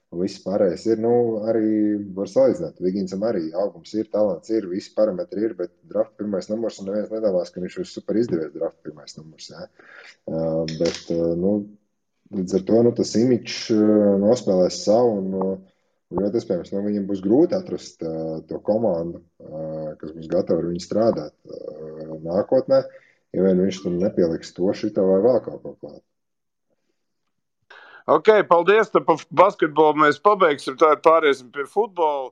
un viss pārējais ir, arī var salīdzināt. Viginsam arī augums ir, talants ir, visi parametri ir, bet draft pirmais numurs, un neviens nedomās, ka viņš ir super izdevies draft pirmais numurs. Ja? Bet, līdz ar to, tas imidžs nospēlēs savu, un ļoti iespējams, viņam būs grūti atrast to komandu, kas būs gatava ar viņu strādāt nākotnē, ja vien viņš tur nepieliks to šito vai vēl kaut ko klāt. Ok, paldies, tad par basketbolu mēs pabeigsim, tā pāriesim pie futbola.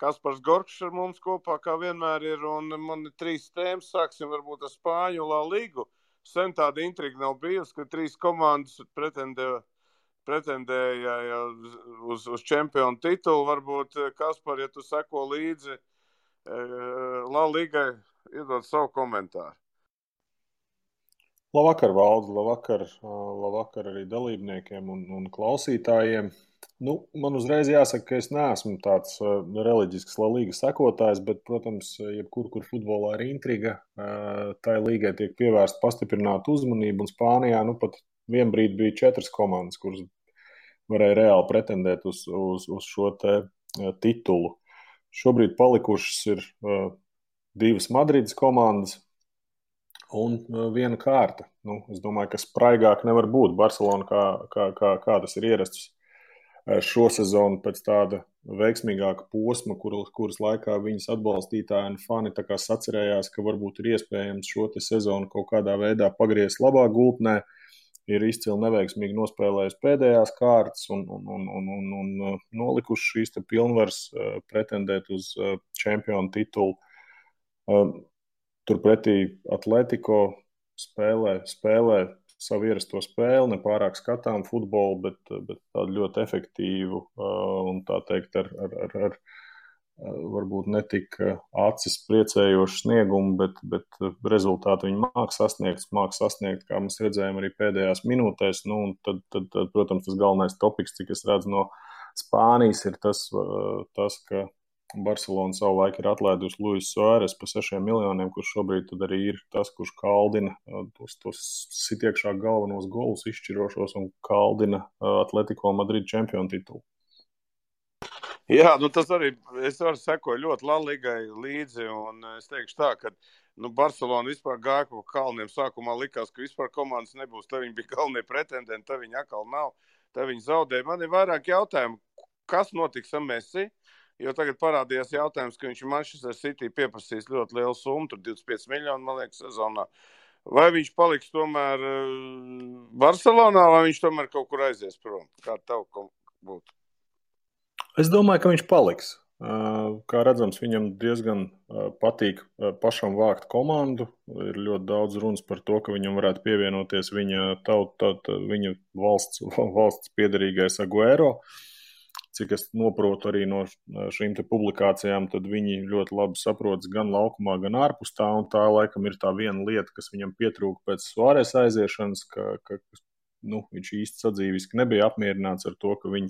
Kaspars Gorkšs ar mums kopā, kā vienmēr ir, un man ir 3 tēmas, sāksim varbūt ar Spāņu La Ligu. Sen tāda intriga nav bijusi, ka 3 komandas pretendēja uz čempionu titulu. Varbūt, Kaspar, ja tu seko līdzi La Ligai, iedod savu komentāru. Labvakar, Valdi, labvakar arī dalībniekiem un klausītājiem. Man uzreiz jāsaka, ka es neesmu tāds reliģisks La Ligas sekotājs, bet, protams, kur futbolā ir intriga, tai līgai tiek pievērsta pastiprināta uzmanība, un Spānijā pat vienbrīd bija 4 komandas, kuras varēja reāli pretendēt uz šo te titulu. Šobrīd palikušas ir 2 Madrides komandas un 1 kārta. Es domāju, ka spraigāk nevar būt. Barcelona, kā tas ir ierasts šo sezonu pēc tāda veiksmīgāka posma, kuras laikā viņas atbalstītāji un fani tā kā sacerējās, ka varbūt ir iespējams šo te sezonu kaut kādā veidā pagriezt labā gultnē. Ir izcili neveiksmīgi nospēlējis pēdējās kārtas un nolikuši šīs te pilnvaras pretendēt uz čempionu titulu. Turpretī Atletico spēlē savu ierasto spēli, nepārāk skatām futbolu, bet tādu ļoti efektīvu un tā teikt ar varbūt netik acis priecējošu sniegumu, bet rezultātu viņi māk sasniegt, kā mēs redzējām arī pēdējās minūtēs. Un tad, protams, tas galvenais topiks, cik es redzu no Spānijas, ir tas, ka Barcelona savulaik ir atlaidusi Luis Suárez par 6 miljoniem, kurš šobrīd tad arī ir tas, kurš kaldina tos sitiekšā galvenos golus izšķirošos un kaldina Atletico Madrid čempionu titulu. Jā, tas arī, es varu sekoju ļoti La Ligai līdzi, un es teikšu tā, ka Barcelona vispār gāja pa kalniem. Sākumā likās, ka vispār komandas nebūs, tā viņi bija galvenie pretendenti, tā viņi atkal nav, tā viņi zaudēja. Man ir vairāk jautājumu, kas notiks ar Messi? Jo tagad parādījās jautājums, ka viņš Manchester City pieprasīs ļoti lielu summu, tur 25 miljonu, man liekas, sezonā. Vai viņš paliks tomēr Barcelonā, vai viņš tomēr kaut kur aizies prom? Kā tev būtu? Es domāju, ka viņš paliks. Kā redzams, viņam diezgan patīk pašam vākt komandu. Ir ļoti daudz runas par to, ka viņam varētu pievienoties viņa valsts piederīgais Aguero. Cik es noprotu arī no šīm te publikācijām, tad viņi ļoti labi saprotas gan laukumā, gan ārpus tā, un tā laikam ir tā viena lieta, kas viņam pietrūka pēc Suárez aiziešanas, ka viņš īsti sadzīviski nebija apmierināts ar to, ka viņi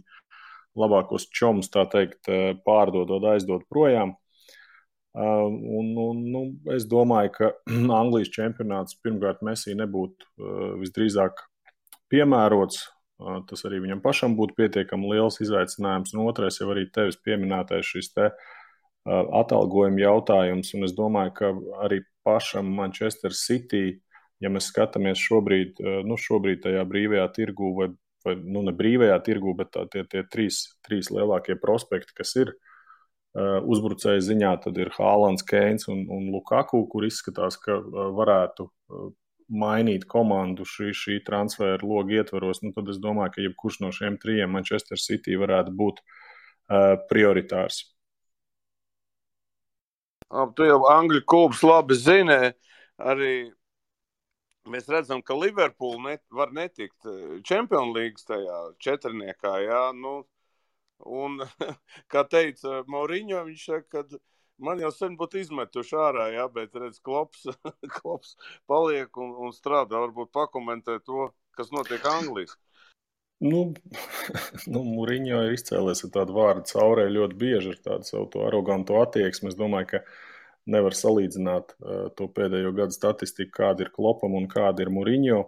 labākos čomus, tā teikt, pārdodot, aizdot projām. Es domāju, ka Anglijas čempionāts pirmkārt Messi nebūtu visdrīzāk piemērots. tas arī viņam pašam būtu pietiekami liels izaicinājums. Un otrais jau arī tevis pieminētais šis te atalgojuma jautājums. Un es domāju, ka arī pašam Manchester City, ja mēs skatāmies šobrīd tajā brīvajā tirgū vai ne brīvajā tirgū, bet tie trīs lielākie prospekti, kas ir uzbrucēju ziņā, tad ir Haalands, Keins un Lukaku, kur izskatās, ka varētu mainīt komandu šī transfera loga ietvaros. Nu, tad es domāju, ka jebkurš no šiem trijiem Manchester City varētu būt prioritārs. Tu jau Angļu klubs labi zini, arī mēs redzam, ka Liverpool var netikt Champions League tajā četrniekā, jā, nu, un, kā teica Mourinho, viņš saka, ka man jau sen būtu izmetuši ārā, jā, bet redz, Klops paliek un strādā, varbūt pakomentē to, kas notiek Anglijas. Nu, Mourinho ir izcēlies ar tādu vārdu caurē ļoti bieži ar tādu savu to aroganto attieksmi. Es domāju, ka nevar salīdzināt to pēdējo gadu statistiku, kāda ir Klopam un kāda ir Mourinho.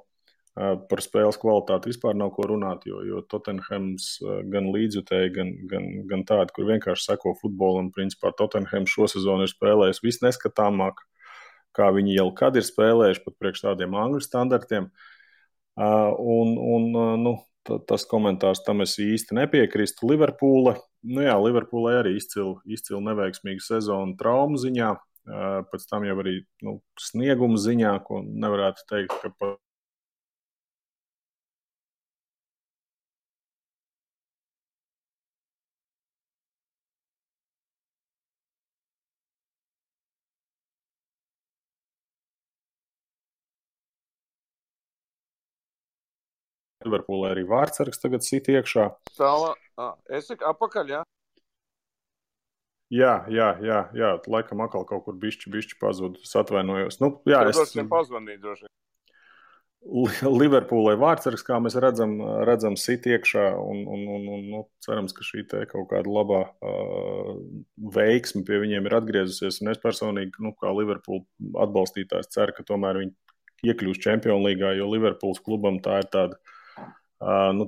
Par spēles kvalitāti vispār nav ko runāt, jo Tottenhams gan līdzjutēji, gan tādi, kur vienkārši seko futbolam. Principā Tottenham šo sezonu ir spēlējis visneskatāmāk, kā viņi jau kad ir spēlējuši, pat priekš tādiem angļu standartiem. Tas komentārs tam es īsti nepiekrīstu. Liverpoolai arī izcili neveiksmīga sezona traumu ziņā, pēc tam jau arī snieguma ziņā, ko nevarētu teikt, ka pat Liverpoolai arī vārdsargs tagad sit iekšā. Es saku apakaļ, jā? Jā, laikam atkal kaut kur bišķi pazud, es atvainojos. Es pazvanīju droši. Liverpoolai vārdsargs, kā mēs redzam sit iekšā un cerams, ka šī te kaut kāda labā veiksme pie viņiem ir atgriezusies. Un es personīgi, kā Liverpool atbalstītājs, ceru, ka tomēr viņi iekļūs Champions League, jo Liverpools klubam tā ir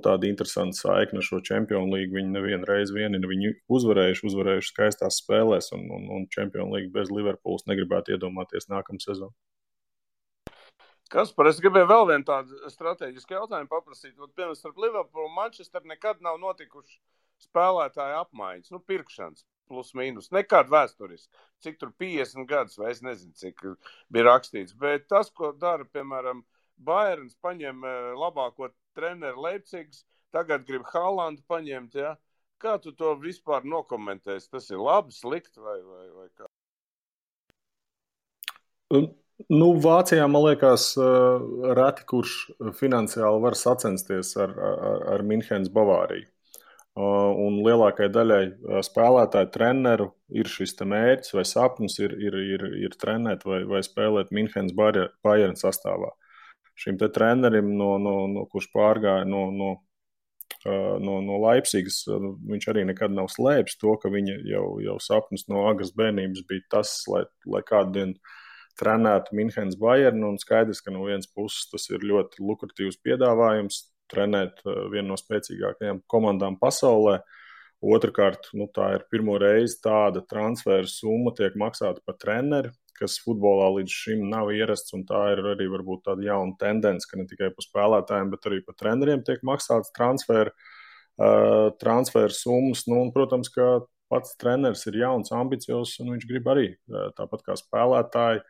tāda interesanta saikne ar šo Champions League. Viņi nevienu reizi ir viņu uzvarējuši skaistās spēlēs, un Champions League bez Liverpools negribētu iedomāties nākamā sezonu. Kaspar, es gribēju vēl vienu tādu strateģisku jautājumu paprasīt. Piemēram, starp Liverpoolu un Manchester nekad nav notikuši spēlētāju apmaiņas, pirkšanas plus mīnus, nekad vēsturiski. Cik tur 50 gadus, vai es nezinu, cik bija rakstīts. Bet tas, ko dara, piemēram, Bayerns paņem labāko treneru Leipzigas, tagad grib Haalandu paņemt, ja? Kā tu to vispār nokomentēsi? Tas ir labi, slikti vai kā? Vācijā, man liekas, reti kurš finansiāli var sacensties ar Minhenes Bavāriju. Un lielākai daļai spēlētāju treneru ir šis te mērķis vai sapnis ir trenēt vai spēlēt Minhenes Bayern sastāvā. Šim te trenerim, kurš pārgāja no Leipzigas, viņš arī nekad nav slēpis to, ka viņa jau sapnis no agras bērnības bija tas, lai kādu dienu trenētu Minhenes Bayern, un skaidrs, ka no vienas puses tas ir ļoti lukratīvs piedāvājums trenēt vienu no spēcīgākajām komandām pasaulē. Otrakārt, tā ir pirmo reizi tāda transfera summa tiek maksāta par treneri, kas futbolā līdz šim nav ierasts, un tā ir arī varbūt tāda jauna tendence, ka ne tikai par spēlētājiem, bet arī par treneriem tiek maksāts transfera summas. Un, protams, ka pats treneris ir jauns, ambiciozs, un viņš grib arī, tāpat kā spēlētāji,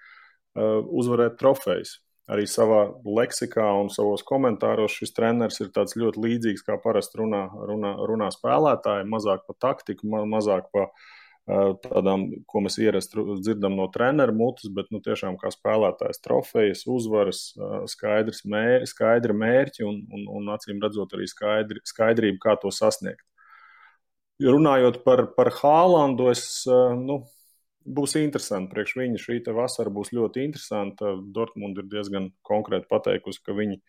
uzvarēt trofejas. Arī savā leksikā un savos komentāros šis treneris ir tāds ļoti līdzīgs, kā parasti runā spēlētāji, mazāk pa taktiku, mazāk pa tādām, ko mēs ierasti dzirdam no treneru mutes, bet tiešām kā spēlētājs trofejas, uzvaras, skaidri mērķi un acīm redzot arī skaidrību, kā to sasniegt. Runājot par Haalandu, būs interesanti priekš viņa. Šī te vasara būs ļoti interesanta. Dortmund ir diezgan konkrēti pateikusi, ka viņi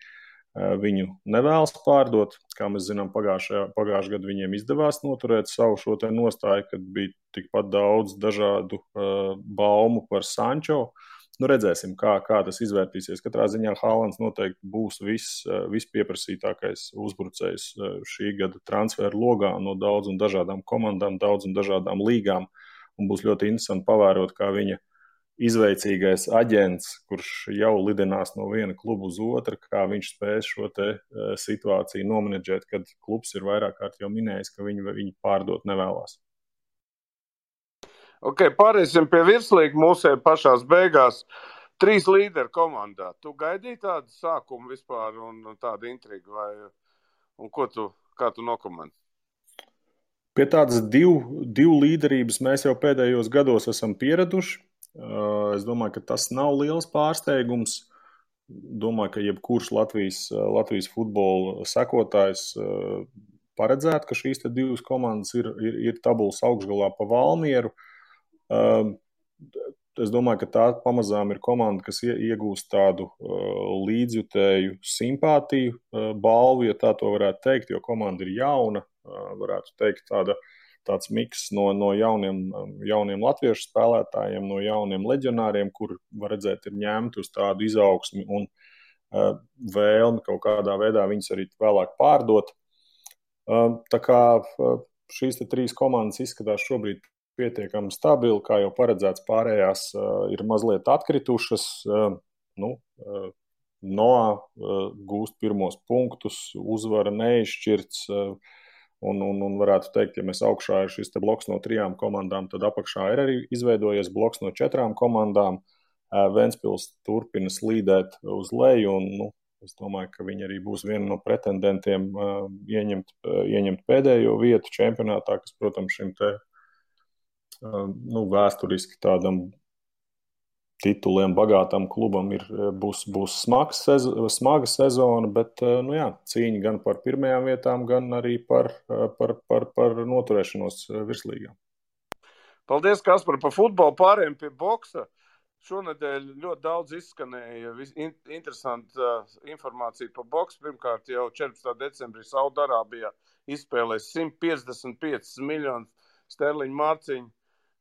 viņu nevēlas pārdot. Kā mēs zinām, pagājušajā gadu viņiem izdevās noturēt savu šo te nostāju, kad bija tikpat daudz dažādu baumu par Sancho. Nu, redzēsim, kā tas izvērtīsies. Katrā ziņā Haalands noteikti būs vispieprasītākais uzbrucējs šī gada transferu logā no daudz un dažādām komandām, daudz un dažādām līgām. Un būs ļoti interesanti pavērot, kā viņa izveicīgais aģents, kurš jau lidinās no viena kluba uz otru, kā viņš spēs šo te situāciju nomenedžēt, kad klubs ir vairāk kārt jau minējis, ka viņi pārdot nevēlās. Ok, pārēsim pie virslīga mūsē pašās beigās. 3 līderi komandā. Tu gaidīji tādu sākumu vispār un tādu intrigu? Un kā tu nokomentē? Pie tādas divu līderības mēs jau pēdējos gados esam pieraduši. Es domāju, ka tas nav liels pārsteigums. Domāju, ka jebkurš Latvijas futbola sekotājs paredzētu, ka šīs te 2 komandas ir tabulas augšgalā pa Valmieru. Es domāju, ka tā pamazām ir komanda, kas iegūst tādu līdzjutēju simpātiju balvu, ja tā to varētu teikt, jo komanda ir jauna, varētu teikt tāds miks no jauniem latviešu spēlētājiem, no jauniem leģionāriem, kur, var redzēt, ir ņemti uz tādu izaugsmi un vēlmi kaut kādā veidā viņus arī vēlāk pārdot. Tā kā šīs te 3 komandas izskatās šobrīd pietiekami stabili, kā jau paredzēts, pārējās ir mazliet atkritušas. Noā gūst pirmos punktus, uzvara neizšķirts, un varētu teikt, ja mēs augšā ir šis te bloks no 3 komandām, tad apakšā ir arī izveidojies bloks no 4 komandām. Ventspils turpina slīdēt uz leju, un es domāju, ka viņi arī būs viena no pretendentiem ieņemt pēdējo vietu čempionātā, kas, protams, šim te vēsturiski tādam tituliem bagātam klubam būs smaga sezona, bet cīņa gan par pirmajām vietām, gan arī par noturēšanos virslīgā. Paldies, Kaspar, par futbolu. Pārējiem pie boksa. Šonedēļ ļoti daudz izskanēja interesanta informācija par boksu. Pirmkārt, jau 14. decembrī Saudarābijā izspēlēs 155 miljonu sterliņu mārciņu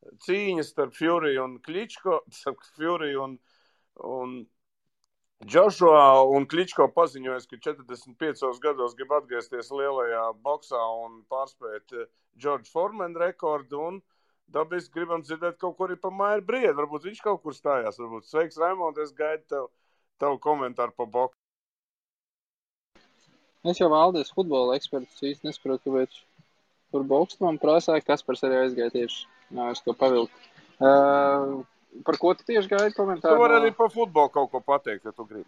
cīņas starp Fury un Kličko, starp Fury un Joshua, un Kličko paziņojas, ka 45 gados grib atgriezties lielajā boksā un pārspēt George Foreman rekordu, un dabiski gribam dzirdēt kaut ko arī par Mairu Briedu. Varbūt viņš kaut kur stājās. Varbūt. Sveiks, Raimond, es gaidu tavu komentāru par boksu. Es jau Valdis futbola eksperts īsti nesaprotu, kāpēc par boksu man prasāja, Kaspars arī aizgāja tieši. Jā, es to pavilku. Par ko tu tieši gaidi komentāru? Tu vari arī par futbolu kaut ko pateikt, ja tu gribi.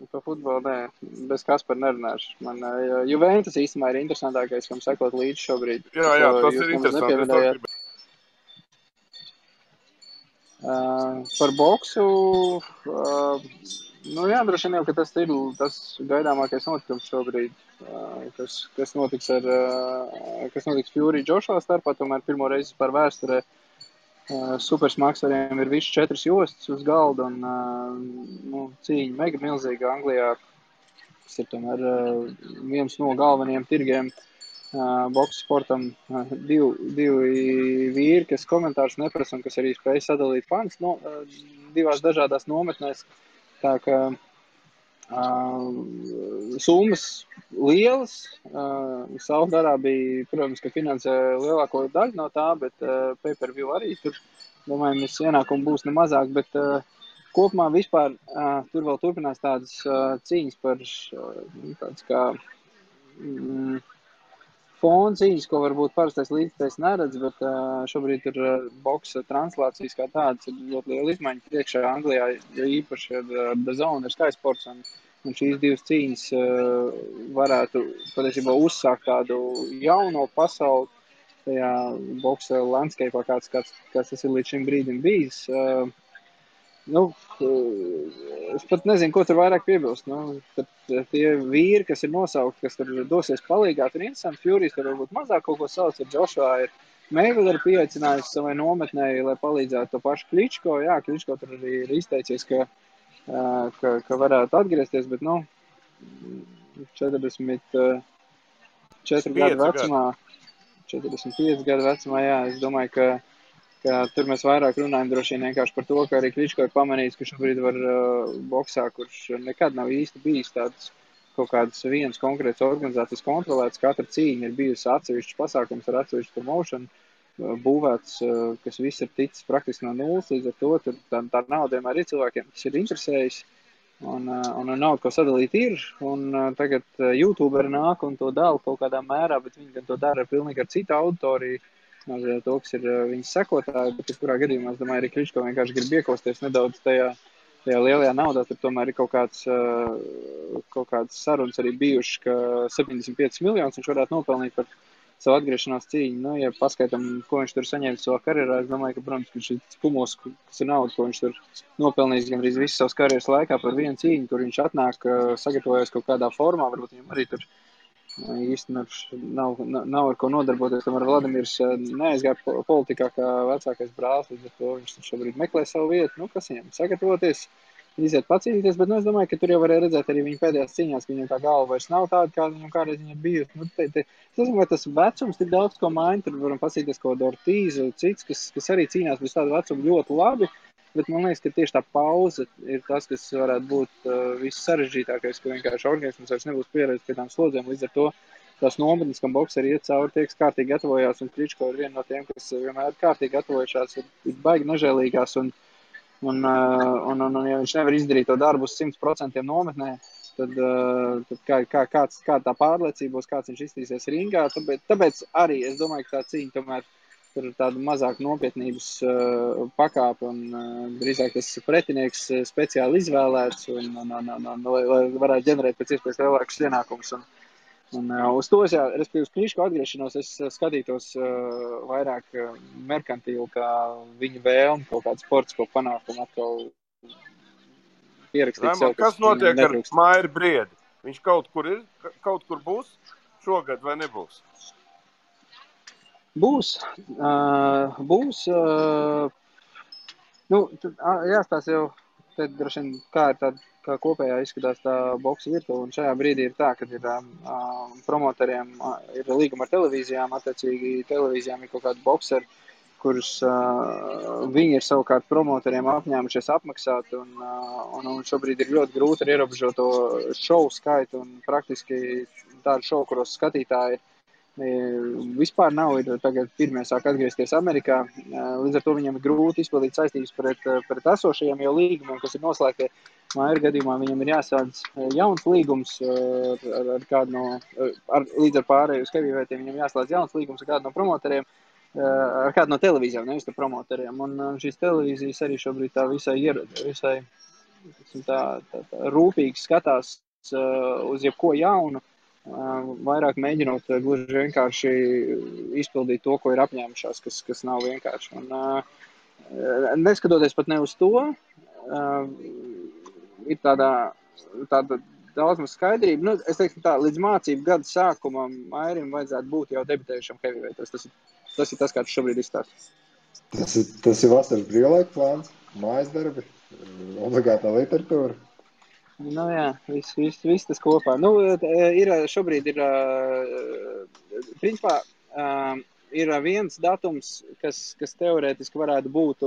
Par futbolu, nē. Bez Kaspara nerunāšu. Man Juventus īstenībā ir interesantākais, kam sekot līdzi šobrīd. Jā, tas ir interesanti. Par boksu, droši vien jau, ka tas ir tas gaidāmākais notikums šobrīd, kas notiks Fury Joshua starpā, tomēr pirmo reizi par vēsturē supersmaksariem ir viss 4 jostas uz galda, un cīņa mega milzīga Anglijā, kas ir tomēr viens no galvenajiem tirgiem boksa sportam. Divi vīri, kas komentārus neprasa un kas arī spēj sadalīt fans divās dažādās nometnēs. Tā ka summas lielas. Saudarābija, protams, ka finansē lielāko daļu no tā, bet pay-per-view arī tur, domāju, mēs ienākumi būs nemazāk, bet kopumā vispār tur vēl turpinās tādas cīņas par tāds kā fona cīņas, ko varbūt parastais līdzekļs neredz, bet šobrīd ir boksa translācijas kā tādas, ir ļoti liela izmaiņa priekšā Anglijā, jo īpaši ar DAZN, ar Sky Sports, un šīs divas cīņas varētu patiesībā uzsākt tādu jauno pasauli tajā boksa landscape'ā, kāds tas ir līdz šim brīdim bijis. Es pat nezinu, ko tur vairāk piebilst. Tie vīri, kas ir nosaukti, kas tur dosies palīgā, tur interesanti. Furijas tur varbūt mazāk kaut ko sauc, ar Joshua ir Mayweather pieaicinājusi savai nometnēji, lai palīdzētu to pašu Kličko. Jā, Kličko tur arī ir izteicies, ka varētu atgriezties, bet 44 gadu vecumā, 45 gadu vecumā, jā, es domāju, ka ka tur mēs vairāk runājam droši vien vienkārši par to, ka arī Kličko ir pamanījis, ka šobrīd var boksā, kurš nekad nav īsti bijis tāds kaut kādas vienas konkrētas organizācijas kontrolētas. Katra cīņa ir bijusi atsevišķs pasākums ar atsevišķu promotion būvēts, kas viss ir ticis praktiski no nulles, līdz ar to tā nauda vienmēr ir cilvēkiem, kas ir interesējis. Un naudu, ko sadalīt ir, un tagad YouTuberi nāk un to dala kaut kādā mērā, bet viņi gan to dara pilnīgi ar citu auditoriju, to, kas ir viņas sekotāji, bet kurā gadījumā, es domāju, arī Kličko vienkārši grib iekosties nedaudz tajā lielajā naudā, tur tomēr ir kaut kāds sarunas arī bijuši, ka 75 miljonus viņš varētu nopelnīt par savu atgriešanās cīņu. Nu, ja paskaitam, ko viņš tur saņēma savā karjerā, es domāju, ka, protams, ka šis kumos, kas ir nauda, ko viņš tur nopelnījis gandrīz visu savas karjeras laikā par vienu cīņu, kur viņš atnāk, sagatavojas kaut kādā formā, varbūt viņam arī tur īsti nav ar ko nodarboties. Tomēr Vladimirs neaizgāja politikā kā vecākais brālis, līdz ar to viņš šobrīd meklē savu vietu. Nu, kas viņam sagatavoties, iziet pacīnīties, bet es domāju, ka tur jau varēja redzēt arī viņa pēdējās cīņās, ka viņam tā galva vairs nav tāda, kāda viņam kādreiz viņa bijusi. Nu, es domāju, ka tas vecums tik daudz ko maina, tur varam pasīties kaut Ortīzu, cits, kas arī cīnās bez tādu vecumu ļoti labi. Bet man liekas, ka tieši tā pauze ir tas, kas varētu būt viss sarežģītākais, ka vienkārši organisms vairs nebūs pieredzējis pie tām slodzēm. Līdz ar to tās nometnes, kam bokseri iet cauri, tie, kas kārtīgi gatavojās, un Kličko ir viena no tiem, kas vienmēr kārtīgi gatavojušās, ir baigi nežēlīgās, un ja viņš nevar izdarīt to darbu uz 100% nometnē, tad kā tā pārliecība būs, kāds viņš iztīsies ringā, tāpēc arī es domāju, ka tā cīņa tomēr tur ir tāda mazāk nopietnības pakāpe, un drīzāk tas pretinieks speciāli izvēlēts, lai varētu ģenerēt pēc iespējas lielākus ienākumus. Un uz to, respektīvi, uz Kličko atgriešanos, es skatītos vairāk merkantīli, kā viņa vēlmi kaut kādu sportisko panākumu atkal pierakstīt sev. Kas notiek ar Mairu Briedi? Viņš kaut kur būs šogad vai nebūs? Būs. Jāstāsta jau, tad droši vien, kā kopējā izskatās tā boksa virtuve, un šajā brīdī ir tā, ka ir promotoriem ir līguma ar televīzijām, attiecīgi televīzijām ir kaut kādi bokseri, kurus viņi ir savukārt promotoriem apņēmušies apmaksāt, un šobrīd ir ļoti grūti ar ierobežoto šovu skaitu, un praktiski tādu šovu, kuros skatītāji vispār nav, ir tagad pirmie sāk atgriezties Amerikā, līdz ar to viņam ir grūti izpildīt saistības pret esošajiem jau līgumiem, kas ir noslēgti. Maira gadījumā viņam ir jāsādz jauns līgums ar kādu līdz ar pārēju uz heavyweighiem, viņam jāslēdz jauns līgums ar kādu no promotoriem, ar kādu no televīzijām, nevis ar promotoriem. Un šīs televīzijas arī šobrīd tā visai tā rūpīgi skatās uz jebko jaunu, vairāk mēģinot gluži vienkārši izpildīt to, ko ir apņēmušās, kas nav vienkārši. Un neskatoties pat ne uz to, ir tāda daudz maz skaidrība. Nu, es teiktu tā, līdz mācību gada sākumam Mairim vajadzētu būt jau debitējušam heavyweightos. Tas ir tas, kā tu šobrīd izstāsti. Tas ir vasaras brīvlaika plāns, mājas darbi, obligātā literatūra. Nu jā, viss tas kopā. Nu, šobrīd principā, ir viens datums, kas teorētiski varētu būt,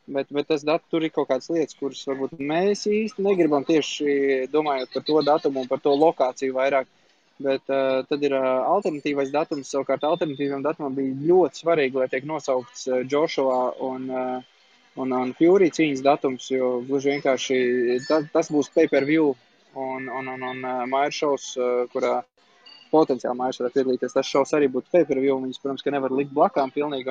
bet tas tur ir kaut kādas lietas, kuras varbūt mēs īsti negribam tieši domājot par to datumu un par to lokāciju vairāk. Bet tad ir alternatīvais datums, savukārt alternatīvam datumam bija ļoti svarīgi, lai tiek nosaukts Joshua un Fury cīņas datums, jo gluži vienkārši tas būs pay-per-view un Maira šovs, kurā potenciāli Mairs varētu piedalīties. Tas šovs arī būtu pay-per-view, viņas, protams, ka nevar likt blakām pilnīgi,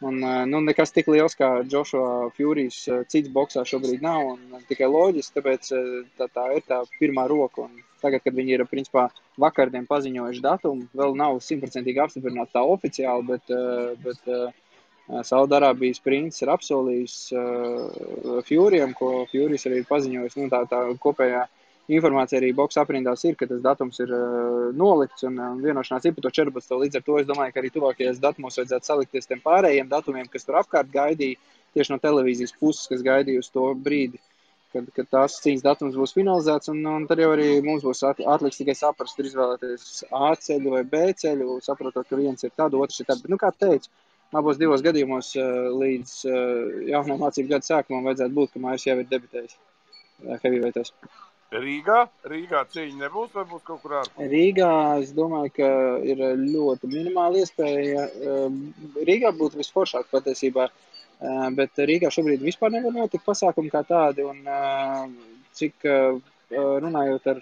un nekas tik liels kā Joshua Furys cits boksā šobrīd nav, un tikai loģiski, tāpēc tā ir tā pirmā roka, un tagad, kad viņi ir, principā, vakardien paziņojuši datumu, vēl nav 100% apstiprināts tā oficiāli, bet Saudarābijas princis ir apsolījis Furyam, ko Furys arī ir paziņojis. Nu, tā kopējā informācija arī boksa aprindās ir, ka tas datums ir nolikts un vienošanās ir par to 14. Līdz ar to es domāju, ka arī tuvākajās datumos vajadzētu salikties tiem pārējiem datumiem, kas tur apkārt gaidīja tieši no televīzijas puses, kas gaidīja uz to brīdi, kad tās cīņas datums būs finalizēts, un tad jau arī mums būs atliks tikai saprast, ir izvēlēties A ceļu vai B ceļu, saprotot, ka viens ir tad, otrs ir tad. Bet, kā teicu, abos divos gadījumos līdz jaunā mācību gada sākumam vajadzētu būt, ka Mairis jau ir debitējis heavyweightos. Rīgā cīņa nebūs vai būs kaut kur ārpus? Rīgā es domāju, ka ir ļoti minimāla iespēja. Rīgā būtu visforšāk patiesībā, bet Rīgā šobrīd vispār nevar notikt pasākumi kā tādi. Un cik runājot ar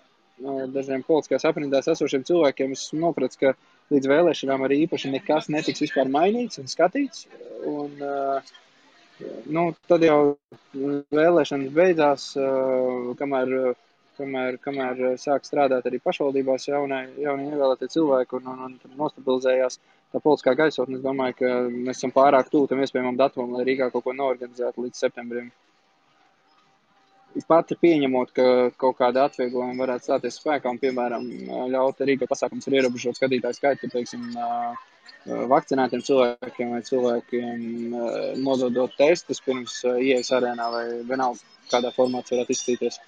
dažiem politiskās aprindās esošiem cilvēkiem, es nopratu, ka līdz vēlēšanām arī īpaši nekas netiks vispār mainīts un skatīts. Un, tad jau vēlēšanas beidzās, kamēr sāk strādāt arī pašvaldībās jaunie ievēlētie cilvēki un nostabilizējās tā politiskā gaisotne. Es domāju, ka mēs esam pārāk tuvu tam iespējamam datumam, lai Rīgā kaut ko noorganizētu līdz septembrim. Pat pieņemot, ka kaut kāda atvieglojuma varētu stāties spēkā un, piemēram, ļaut Rīgā pasākums ar ierobežot skatītāju skaitu, teiksim, vakcinētiem cilvēkiem vai cilvēkiem nododot testus pirms ieejas arēnā vai vienalga kādā formāts varētu izskatīties.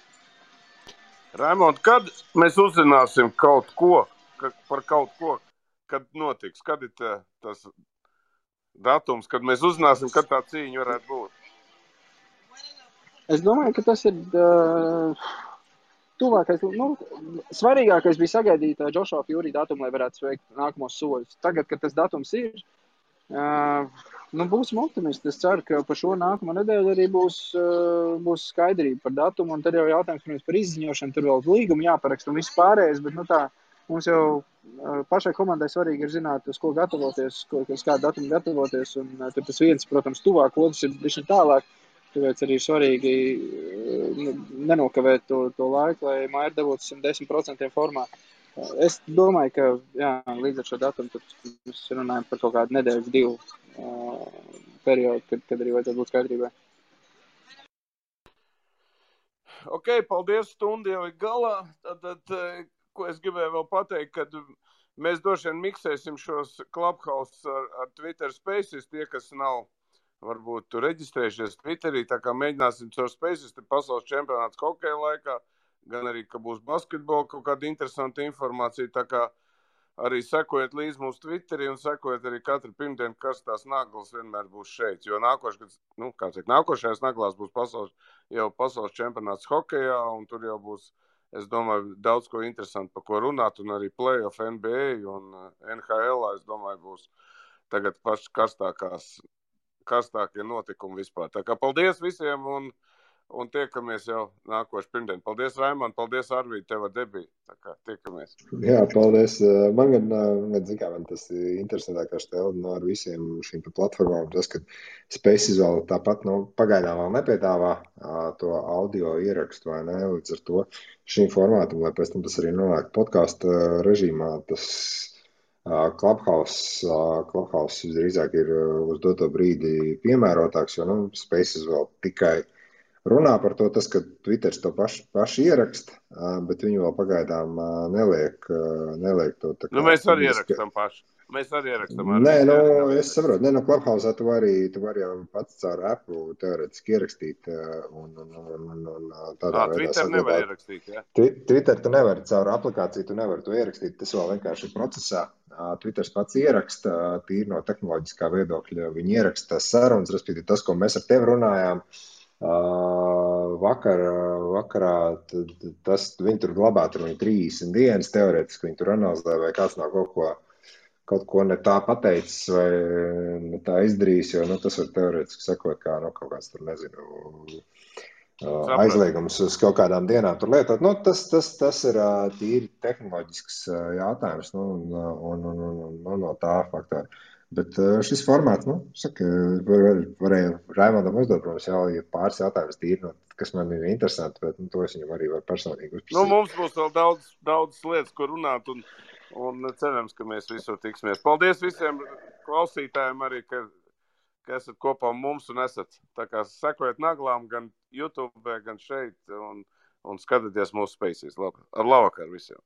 Raimond, kad mēs uzzināsim kaut ko, kad notiks? Kad ir tas datums, kad mēs uzzināsim, kad tā cīņa varētu būt? Es domāju, ka tas ir tuvākais. Svarīgākais bija sagaidīt Joshua Fury datumu, lai varētu sveikt nākamos soļus. Tagad, kad tas datums ir, būsim optimisti. Es ceru, ka par šo nākamo nedēļu arī būs skaidrība par datumu, un tad jau jautājums, protams, par izziņošanu, tur vēl līgumu jāparaksta un viss pārējais, bet mums jau pašai komandai svarīgi ir zināt, uz ko gatavoties, uz kādu datumu gatavoties, un tur tas viens, protams, tuvāk, otrs ir bišķi tālāk, tāpēc arī svarīgi nenokavēt to laiku, lai Maira dabūtu 110% formā. Es domāju, ka līdz ar šo datumu mēs runājam par kaut kādu nedēļas, 2 periodu, kad arī vajadzētu būt skaidrībai. Ok, paldies, stunda jau ir galā. Tad, ko es gribēju vēl pateikt, kad mēs droši vien miksēsim šos Clubhouse ar Twitter Spaces, tie, kas nav varbūt reģistrējušies Twitterī, tā kā mēģināsim caur Spaces, te pasaules čempionāts hokeja laikā, gan arī, ka būs basketbola kaut kāda interesanta informācija, tā kā arī sekojiet līdz mūsu Twitterī un sekojiet arī katru pirmdienu, kas tās naglas vienmēr būs šeit, jo nākošajās naglās būs pasaules čempionāts hokejā, un tur jau būs, es domāju, daudz ko interesanti, par ko runāt, un arī playoff NBA un NHL, es domāju, būs tagad paši karstākie notikumi vispār. Tā kā paldies visiem un tiekamies jau nākošu pirmdien. Paldies, Raimond, paldies, Arvīd, tev ar debiju. Tā kā tiekamies. Jā, paldies. Man tas ir interesantākais tev ar visiem šīm platformām. Tas, ka Spaces vēl tāpat, pagaidām vēl nepiedāvā to audio ierakstu, vai ne? Līdz ar to šīm formātam, lai pēc tam tas arī nonāk podkāstu režīmā, tas Clubhouse visdrīzāk ir uz doto brīdi piemērotāks, jo Spaces vēl tikai runā par to, tas, ka Twitters to paši ieraksta, bet viņi vēl pagaidām neliek to. Tā kā, mēs arī ierakstam paši. Mēs arī ierakstam. Nē, es saprotu. Clubhouse tu vari jau pats caur Apple teoretiski ierakstīt. Tādā veidā Twitter nevar ierakstīt, jā? Twitter tu nevari caur aplikāciju, tu nevari to ierakstīt. Tas vēl vienkārši ir procesā. Twitters pats ieraksta, tīri no tehnoloģiskā viedokļa. Viņi ieraksta sarunas, respektīvi tas, ko mēs ar tevi runājām. Vakarā viņi tur glabā, tur viņi 30 dienas teoretiski, viņi tur analizē, vai kāds nav kaut ko ne tā pateicis vai ne tā izdarījis, jo tas var teoretiski sekot kā kaut kāds tur, nezinu, aizliegums uz kaut kādām dienām tur lietot. Tas ir tīri tehnoloģisks jautājums no tā faktora. Bet šis formāts, varēja Raimondam uzdot, protams, jau ir pāris jautājumus tīri, kas man ir interesanti, bet to es viņam arī varu personīgi uzprasīt. Mums būs vēl daudz lietas, ko runāt, un cerams, ka mēs visur tiksimies. Paldies visiem klausītājiem arī, ka esat kopā mums un esat. Tā kā sekojiet naglām gan YouTube, gan šeit, un skatieties mūsu Spaces. Ar labvakar visiem!